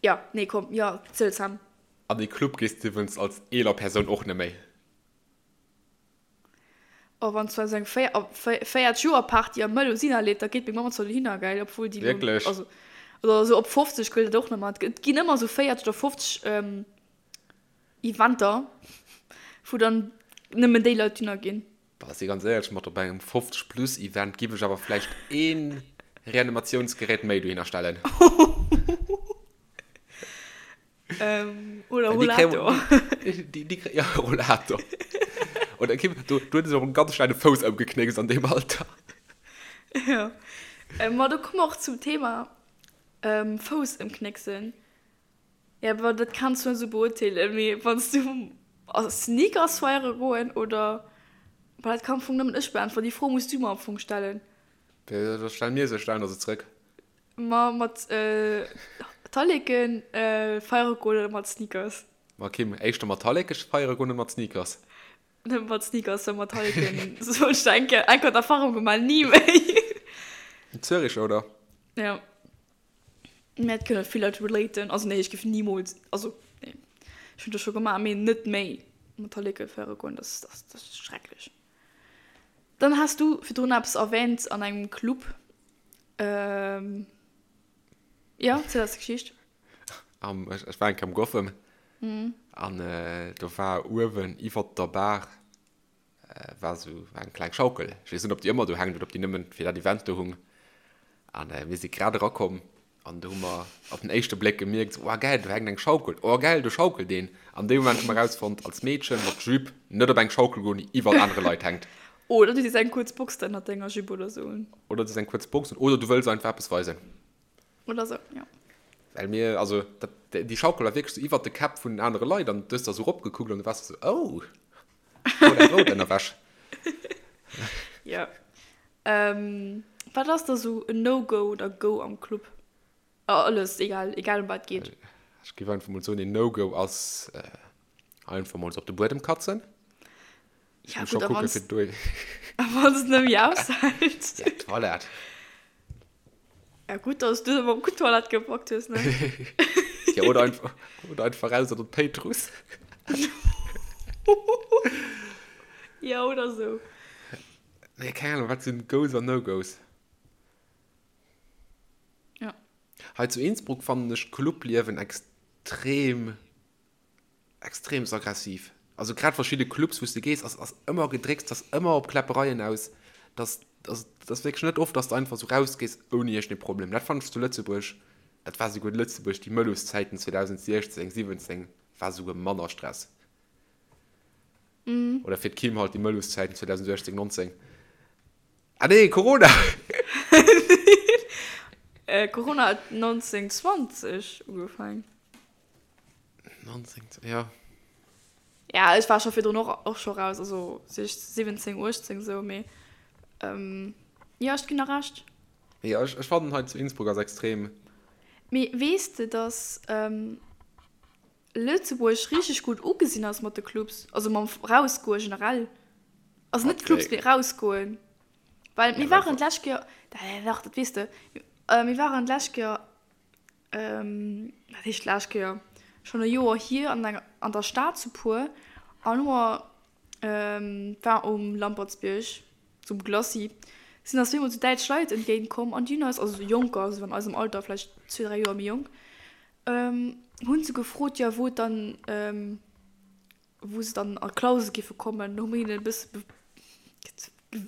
jo, nee komm, jo, ziel Sam. An ee Club gees de iwwrens als eeler Persoun och net méi. Oh wann zwar esou eng 40 Joer Party am Melusina leeft, da geet meng Mamm zwar dohinner, gell, obwuel déi lo, also oder esou op 50 gëllt dat och net méi. Et ginn ëmmer esou 40 oder 50 Eventer, wou dann nëmmen déi Leit dohinner ginn. Bah, si ganz éierlech, mat op engem 50 plus Event giff ech awer vläicht een Reanimatiounsgerät méi dohinner stellen. Ähm, oder Rollator. Die, die, ja, Rollator. Oder Kim, du, du hues och en ganz schnelle Fouss ëmgeknéckst an deem Alter. Ja. Ähm, ma do komme mer och zum Thema ähm, Fouss ëmknécksen. Ja, awer dat kanns du net esou beurteelen, mee wann s du a Sneakers feiere goen oder. Bah, dat kann am Fong nëmmen ech beäntweren. Déi Fro muss du mer am Fong stellen. Da stell mir se, stellen der se zrëck. Ma mat Talleken feiere goen oder mat Sneakers? Ma Kim, éischter mat Talleke feiere goen oder mat Sneakers? Nëmme mat Sneakers, well mat Talleken, sou ech eng Kéier eng Kéier d'Erfahrung gemaach, ni méi. Zürich, oder? Ja. Mä et kënne vill Leit relaten. Also nee, ech géif nimools, also nee, ech hunn dat scho gemaach, mee net méi mat Talleke feiere goen, dat ass, dat ass schrecklech. Dann has du virdrun eppes erwähnt an engem Club. Ähm, ja, ziel eis d'Geschicht. Am, ech, ech war eng Kéier am Gotham. Mhm. An äh, do war uewen iwwert der Bar äh, war sou war eng kleng Schaukel. Ech weess net, ob déi ëmmer do hänkt oder ob déi nëmmen fir dat Event do hung. An äh, mir si grad erakomm An do hu mer op den éischte Bléck gemierkt, oh gäil, do hänkt eng Schaukel, oh gäil, do schaukelt een. An deem Moment hu mer erausfonnt, als Meedchen mat Jupe net op eng Schaukel goen, déi iwwert anere Leit hänkt. Oder du sees eng kuerz Box ënnert denger Jupe oder sou un. Oder du sees eng kuerz Box un, oder du wëlls einfach eppes weisen. Oder sou, jo. Well mir, also dat, déi Schaukel war wierklech sou iwwert de Käpp vun den anere Leit an du hues da sou eropgekuckt an du waars sou, oh, rout eng rout Ënnerwäsch. Jo. Wat ass da sou en No-Go oder Go am Club? Alles, egal, egal em wat et geet. Ech géif einfach mol soen, een No-Go ass einfach mol sou op de Buedem katzen. Ja gutt, a wann s, a wann s et net méi aushält? Ja, Toilette. Ja gutt, dass du awer gutt Toilette gepackt hues, ne? Ja, oder einfach, oder einfach raus an den Péitruss. Ja, oder sou. Nee, keng Ahnung, wat sinn Goes an No-Goes? Ja. Hei zu Innsbruck fannen ech d'Clubliewen extrem, extremst aggressiv. Also grad verschidde Clubs, wou s de gees, ass, ass ëmmer Gedrécks, ass ëmmer op Kläppereien aus. Dass, dass, dass wierklech net oft, dass de einfach sou rausgees ouni iergendee Problem. Dat fannen ech zu Lëtzebuerg, dat war souguer Lëtzebuerg, déi Mëlluszäiten 2016, 17, war souguer manner Stress. Oder fir d'Kim halt déi Mëlluszäiten 2018, 19. Ah nee, Corona! Corona huet 1920 ugefaangen. 19, ja. Ja, ech war scho virdrun och, och scho raus, also 17, 18 sou, mee jo, ech ginn der Recht. Jo, ech, ech fannen hei zu Innsbruck ass extrem. Mee weess de, dass Lëtzebuerg richteg gutt ugesinn ass mat de Clubs, also mam Rausgoe generell. Also net Clubs, mee rausgoen. Well mir waren d'lescht Kéier, dach, dat weess de, mir waren d'lescht Kéier, wat heescht d'lescht Kéier, schonn e Joer hier an enger, an der Stad zu puer an hu mer, war um Lampertsbierg zum Glacis, sinn eis zweemol sou däitsch Leit entgéint komm an déi hunn eis, also sou Jonker, also an eisem Alter, vläicht zwee, dräi Joer méi jonk, Hunn se gefrot, jo wou et dann, wou se dann a Clausen géife kommen. Do hu mir hinnen e bësse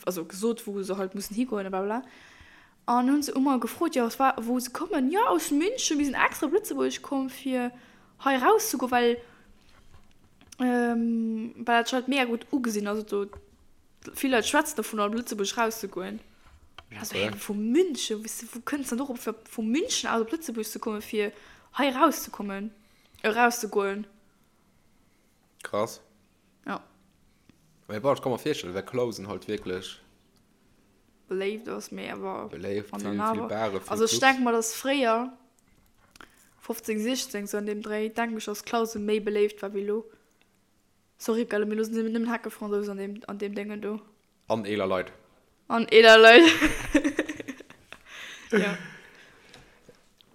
also gesot, wou se halt mussen higoen a blablabla. An hunn se ëmmer gefrot, jo aus wa wou se kommen. Jo aus München, mir sinn extra op Lëtzebuerg komm fir hei erauszegoen, well well dat scho mega gutt ugesinn ass. Do Vill Leit schwätzen dovun op Lëtzebuerg rauszegoen. Also hä, vu München, wéi wou kënns dann dorop fir vu München aus op Lëtzebuerg ze kommen fir hei erauszekommen, erauszegoen? Krass. Ja. Mee bon, ech ka mer virstellen, well Clausen halt wierklech. Beléift ass, mee awer. Beléift, vill, vill Bare, vill Clubs. Also ech denke mer, dass fréier, 15, 16, sou an deem Dréi, denken ech, dass Clausen méi beléift war wéi elo. Sorry gell, mee lo sinn nëmmen Heckefransous an deem, an deem Déngen do. An eeler Leit. An eeler Leit. Ja.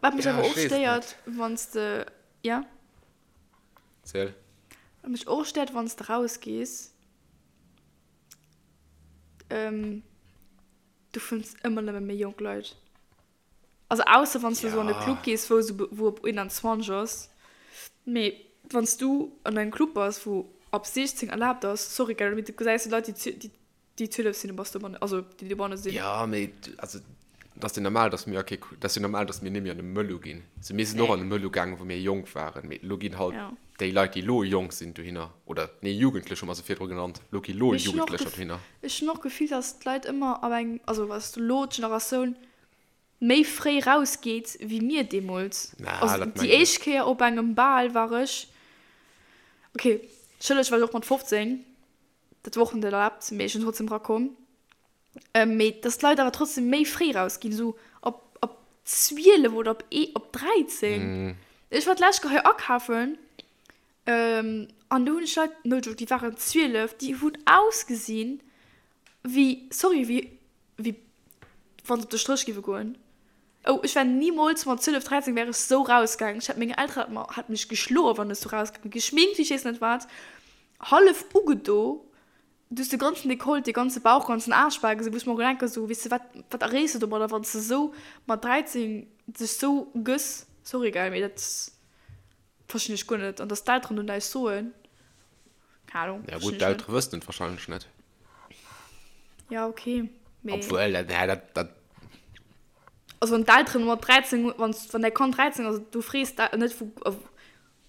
Wat mech Ja, awer ech och weess et stéiert, net. wann s de, ja? Ziel. Wat mech och stéiert, wann s de rausgees, du fënns ëmmer nëmme méi jonk Leit. Also ausser wann s du esou an e Club gees, wou esou wou op 21 ass. Mee wann s du an engem Club bass, wou ab 16 erlaabt ass, sorry gell, mee du gesäis Leit, déi déi 12 sinn, du bass dobannen, also déi dobanne sinn. Jo, mee also et ass jo normal, datt mir a kee, et ass jo normal, datt mir net méi an e Mëllu ginn. Also mir sinn och an e Mëllu gaangen, wou mir jonk waren, mee elo ginn halt déi Leit, déi elo jonk sinn, dohinner, oder nee, Jugendlech hu mer se virdru genannt, elo gi elo Jugendlecher dohinner. Ech hunn och d'Gefill, datt d'Leit ëmmer ab engem, also datt elo d'Generatioun méi fréi raus geet wéi mir deemools. Na, Also dat déi mengen ech. éischt Kéier op engem Bal war ech, ok, schëlleg war ech och mat 15, dat war och net erlaabt, mee ech sinn trotzdem rakomm. Mee dass d'Leit awer trotzdem méi fréi raus ginn, esou op op 12 oder op ee op 13. Ech war d'lescht Kéier hei akafen an do hunn ech Leit, no joke, déi waren 12, déi hunn ausgesinn wéi, sorry, wéi wéi wann se op de Stréch géife goen. Oh, ech wär nimools mat 12, 13 wär ech sou rausgaangen. Ech hätt meng Eltere hätte mer hätte mech geschloen, wann ech sou rausgaangen. Geschminkt wéi ech weess net wat, hallef ugedo, du hues de ganzen Dekolleté, de ganze Bauch, ganzen Aarsch bal gesinn, wou ech mer och denken, sou, weess de wat, wat erreechs de domadder, wann s de sou mat 13 dech sou gëss? Sorry gell, mee dat verstinn ech guer net. An dass d'Elteren do näischt soen, keng Ahnung, Ja verstinn gutt, ech net. d'Eltere wëssen et wahrscheinlech net. Ja, okay. Mee Obwuel, dat, nee, dat, dat. Also wann d'Elteren mat 13, wann, wann däi Kand 13 ass, du frees da net wou,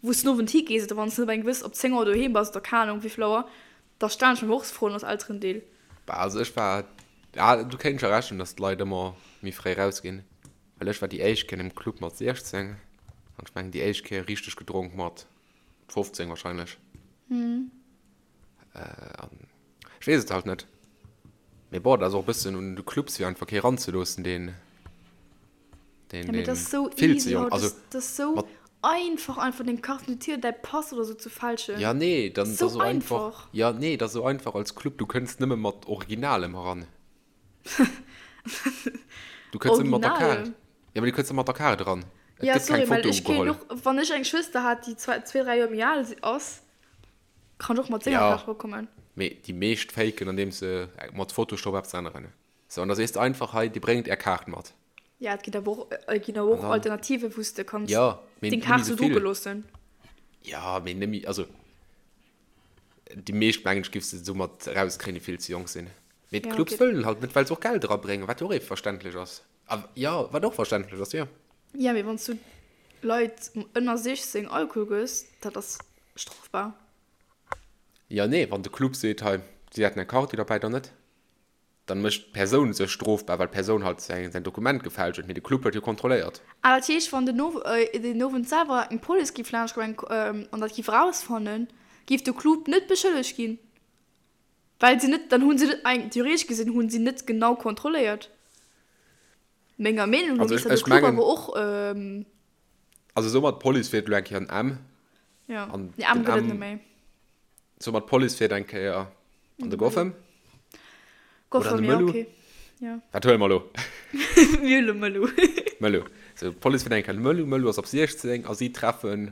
wou s den Owend higees oder wann s net op eng gewëss, op 10 Auer doheem bass oder keng Ahnung wéivill Auer, da stellen ech mir och Froen als Elterendeel. Bah, also ech war, ja, du kéints scho Recht hunn, dass d'Leit ëmmer méi fréi rausginn, well ech war déi éischt Kéier an engem Club mat 16 an ech mengen déi éischt Kéier richteg gedronk mat 15 wahrscheinlech. An ech weess et halt net. Mee bon, dat ass och e bëssen un de Clubs, fir einfach kee ranzeloossen, deen, deen, Ja, mee deen dat ass sou vill ze easy jonk, haut. also Dat ass sou mat. einfach, einfach deng Carte d'identité oder däi Pass oder sou ze fälschen. Ja, nee, dann, dat Sou ass sou einfach. einfach. Ja, nee, dat ass sou einfach als Club, du kënns nëmme mat Originalem eran. Du kënns nëmme mat der Kaart. Originalem? Ja, mee du kënns nëmme mat der Kaart eran. Et Ja, gëtt keng sorry, well Foto ech kéint ugeholl. och, wann ech eng Schwëster hat, déi zwee, dräi Joer méi al ass, Kann och mat senger Ja, Kaart erokommen. mee déi meescht faken andeems se mat Photoshop eppes änneren. Sou, an da sees de einfach, hei, dir bréngt är Kaart mat. Ja, et ginn awer och, et ginn awer An och dann, Alternativen, wou s de kanns ja, mee deng nëmme Kaart sou sou drucke vill. loossen. Ja, mee nëmme, also déi meescht, mengen ech, giffs de soumat erauskréien, déi vill ze jonk sinn. Mee Ja, d'Clubs okay. wëllen halt net, well se och Geld erabréngen, wat jo och ee verständlech ass. A jo, wat och verständlech ass, jo. Ja, mee wann s du Leit ënner 16 Alkohol gëss, dat ass strofbar. Jo, nee, wann de Club seet, hei, si hätten eng Karte derbäi, dann net. Dann mécht d'Persoun sech strofbar, well d'Persoun halt säin Dokument gefälscht huet, mee de Club huet jo kontrolléiert. Ah, dat heescht, wann den den Owend selwer eng Police giff laanscht kommen an dat giff erausfannen, giff de Club net beschëllegt ginn? Well se net, dann hunn se net, theoretesch gesinn, hunn si net genau kontrolléiert. Menger Meenung no Also misst ech, dat de ech Club mengen, awer och. Ähm, also somat d'Police fiert elo eng Kéier an M ja, an nee, M den gëtt et net M, méi. somat d'Police fiert eng Kéier an An de de Mëllu. Goffem oder an Goffem, de ja, Mëllu. okay. Ja. Wat huele mer elo? Mir huele Mëllu. Mëllu. Sou, d'Police fiert eng Kéier an de Mëllu, Mëllu ass op 16 a si treffen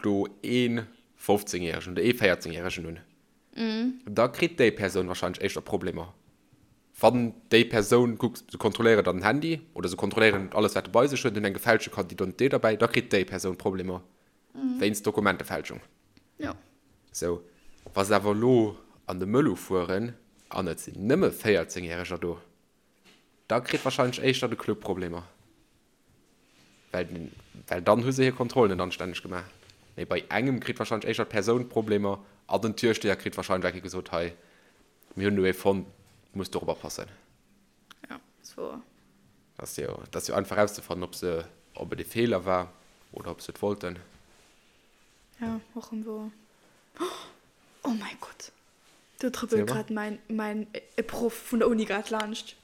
do ee 15 Järegen oder ee 14 Järegen un. Da kritt déi Persoun wahrscheinlech éischter Problemer. Wann déi Persoun, kuck, se kontrolléieren dann den Handy oder se kontrolléieren alles, wat e bei sech huet, hunn eng gefälschte Carte d'identité derbäi, da kritt déi Persoun Problemer wéinst Dokumentefälschung. Jo. Sou, wa se awer elo an de Mëllu fueren an et sinn nëmme 14 Järeger do, da kritt wahrscheinlech éischter de Club Problemer. Well, well dann hu se hir Kontrollen net anstänneg gemaach. Mee bei engem kritt wahrscheinlech éischter d'Persoun Problemer an den Türsteher kritt wahrscheinlech eng Kéier gesot, hei, mir hunn elo ee fonnt, du muss dorop oppassen. Ja, ass wouer. Dat ass jo, dat ass jo einfach erauszefannen, ob se, ob et e Feeler war oder ob se et wollten. Ja, och erëm wouer. Oh mäi Gott, do trëppelt grad mäin, mäin e Proff vun der Uni grad laanscht.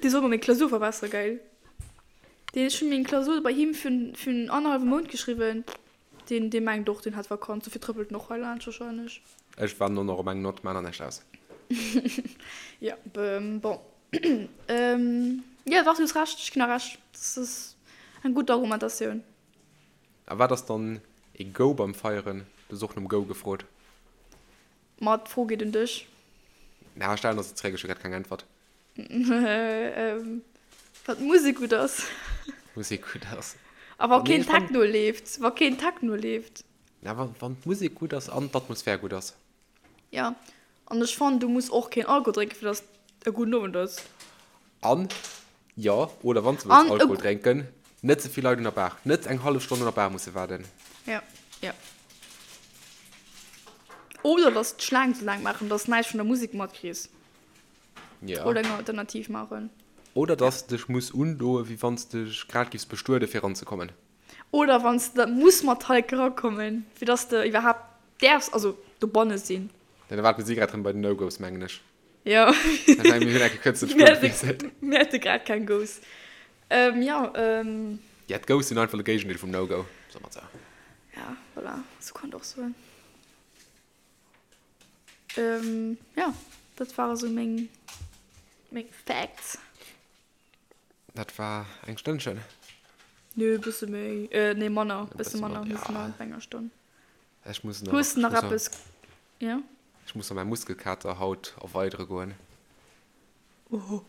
Dee soll mer meng Klausur verbessere, geil. Deen, ech hunn meng Klausur bei him virun, virun annerhallwem Mount geschriwwen. Deen, dee mengt och, deen hätt Vakanz, dofir trëppelt en och hei laanscht wahrscheinlech. Ech waarden och nach op eng Nott, maan der näischt aus. Jo, bon. Jo, dach, du hues Recht, ech ginn der Recht. Dat ass eng gutt Argumentatioun. A wat ass dann ee Go beim Feieren? Du hues och nom Go gefrot. Ma d'Fro geet un dech. Na, stellen der se zréck, ech hu grad keng Äntwert. Wann d'Musek gutt ass. D'Musek gutt ass. A wa keen Techno leeft. Wa keen Techno leeft. Na, wann d'Musek gutt ass an d'Atmosphär gutt ass. Jo, an ech fannen, du muss och keen Alkohol drénken, fir dass et e gudden Owend ass. An, jo, oder wann s de wëlls Alkohol drénken, net ze vill Leit un der Bar. Net eng hallef Stonn un der Bar musse waarden. Jo, jo. Oder dass d'Schlaang ze laang maachen, dass näischt vun der Musek matkriss. Ja. Oder eng Alternativ maachen. Oder dass de dech muss undoen, wéi wann s de dech grad giffs bestueden, fir eranzekommen. Oder wann s de muss mat Hike erakommen, fir dass de iwwerhaapt däerfs, also dobanne sinn. Ja, da waarten si grad rëm bei den No-Go's, mengen ech. Jo. Ech mengen, mir hunn enke kuerz den Spuer gewiesselt. Mir hate grad keng Go's. Jo. Ja, d'Go's sinn einfach de Géigendeel vum No-Go, soe mer et sou. Ja, voilà, sou kann et och soen. Jo, dat ware sou meng, meng Facts. Dat war eng Stënnchen. Nö, bësse méi, nee manner, bësse manner, mir sinn nach bei enger Stonn. Ech muss nach. Hues de nach eppes? Jo. Ech muss nach mäi Muskelkater haut erweidere goen. Oho.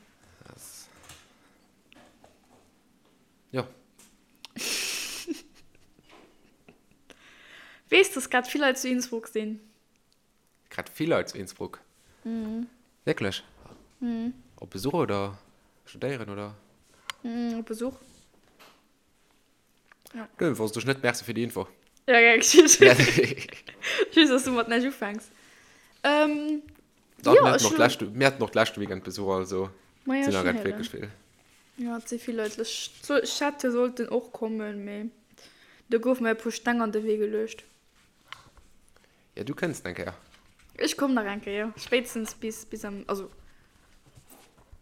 Jo. Weess, dass grad vill Leit zu Innsbruck sinn? Grad vill Leit zu Innsbruck? Mhm. Wierklech? Mhm. Op Besuch oder studéieren oder? Mhm, op Besuch. Ja. Du, wosst ech net. Merci fir déi Info. Ja, gär geschitt. Ech weess, dass du mat näischt ufänks. Ähm, Dach, jo, mir haten ech och hunn. d'lescht, mir haten och d'leschte Weekend Besuch, also Ma ja, sinn der schon grad héieren. wierklech vill. Ja, et si vill Leit. Ech, ech hätt jo sollten och kommen, mee do goufe mir e puer Steng an de Wee geluecht. Ja, du kënns eng Kéier. Ech komm nach eng Kéier, spéitstens bis, bis am, also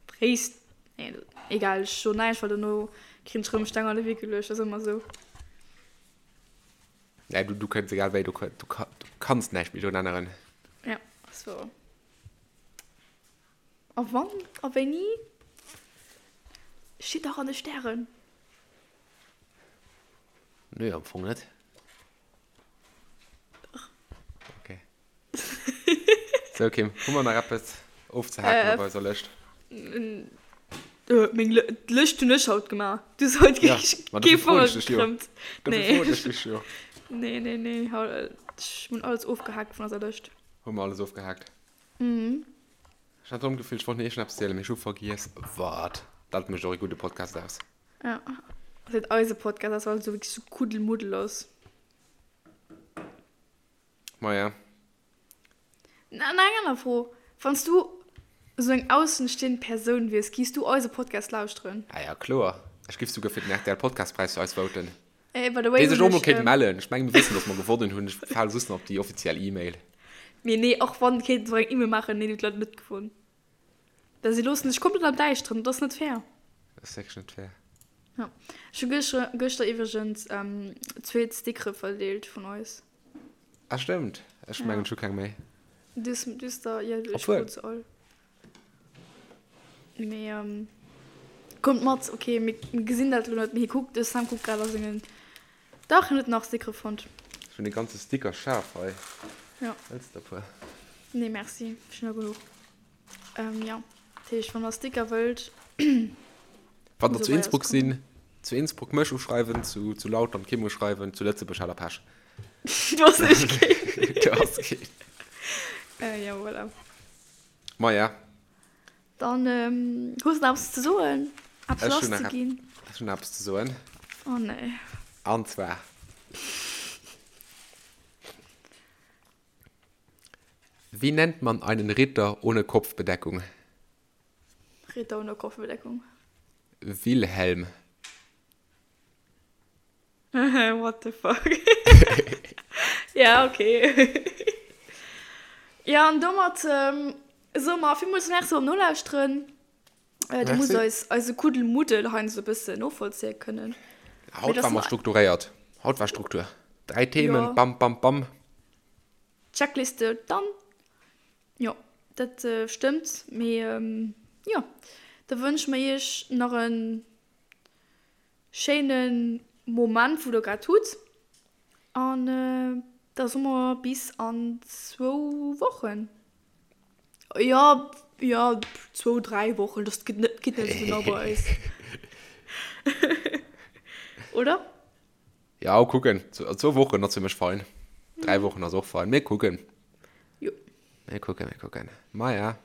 fréist, nee, egal, ech soen näischt, well dono krin ech rëm Steng an de Wee geluecht, ass ëmmer esou. Nee, du, du kënns egal wéi, du, du, du kanns näischt méi drun änneren. Ja, ass wouer. A wann a wéini steet dach an de Stären. Nee, am Fong net. Okay. Sou Kim, hu mer nach eppes ofzehaken op eiser Lëscht? Meng Lëscht hunn ech haut gemaach. Du hues haut Ja, ma kee dofir froen Fanger ech dech jo. gekrëmmt. Dofir Nee. froen ech dech jo. Nee, nee, nee, ech hunn alles ofgehaakt vun eiser Lëscht. Hu mer alles ofgehaakt? Mhm. Ech hat erëm d'Gefill, ech wollt nach iergendeppes zielen, mee ech hu vergiess wat. Dat mécht och ee gudde Podcast aus. Ja, ass et eise Podcast ass, well et sou wierklech sou Kuddelmuddel ass. Maja. Na, nach eng aner Fro, Wann s du esou eng aussenstehend Persoun wiers, giffs du eise Podcast lauschteren? Ah ja, kloer. Ech giff souguer fir den rtl Podcastpräis fir eis voten. Ey, by the way, Déi sech hunn och mol ech, kéinte mellen. Ech mengen, mir wëssen, dass mer gewonnen hunn. Ech fale just nach op déi offiziell E-Mail. Mee nee, och wann, kéinte se och eng E-Mail maachen, Nee, déi huet leider net gewonnen. Well si loossen dech komplett am Däischteren, dat ass net fair. Dat ass wierklech net fair. Ja. Ech hu gëschter, gëschter iwwregens zweet Stickere verdeelt vun eis. Ah stëmmt, ech mengen ech hu keng méi. Du hues, du hues der, jo, ech Obwuel. krut se all. Mee kommt mat, ok, mir gesinn dat elo net, mee hie kuckt, de Sam kuckt grad a sengen, dach, hien huet nach Stickere fonnt. Ech hunn e ganze Sticker-Schaf hei. Ja. Wëlls de der e puer? Nee merci, ech hunn der genuch. Ähm, ja, dat heescht, wann der Sticker wëllt. Wann der zu Innsbruck sinn, zu Innsbruck mech uschreiwen, zu, zu Lautern d'Kim uschreiwen, zu Lëtzebuerg hat der Pech. Du ass echt keen. Du ass keen. Äh, ja, voilà. Maja. Dann, ähm, hues du nach eppes ze soen? Eppes Ech hunn nach lasszeginn? Ech hunn nach eppes ze soen. Oh nee. An zwar. Wie nennt man einen Ritter ohne Kopfbedeckung? Ritter ohne Kopfbedeckung. Wilhelm. What the fuck? Ja, okay. Ja, an domat ähm, soe mer villmools Merci beim Nolauschteren. Äh, du muss eis eise Kuddelmuddel heiansdo e bëssen novollzéie kënnen. Haut war mer strukturéiert. Haut war Struktur. Dräi Themen, ja. bam, bam, bam. Checkliste, dann. Jo, dat stëmmt. Mee jo, da wënsche mer iech nach e schéine Moment, wou der grad hutt. An da soe mer bis an zwou Wochen. Jo, jo, zwou, dräi Wochen, dat geet net, geet net esou genau bei eis. Oder? Ja, kucken. Zwou Wochen ass fir mech fein. Dräi Wochen ass och fein. Mir kucken. Jo. Mir kucken, mir kucken. Maja.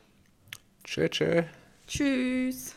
Tschö, tschö. Tschüss.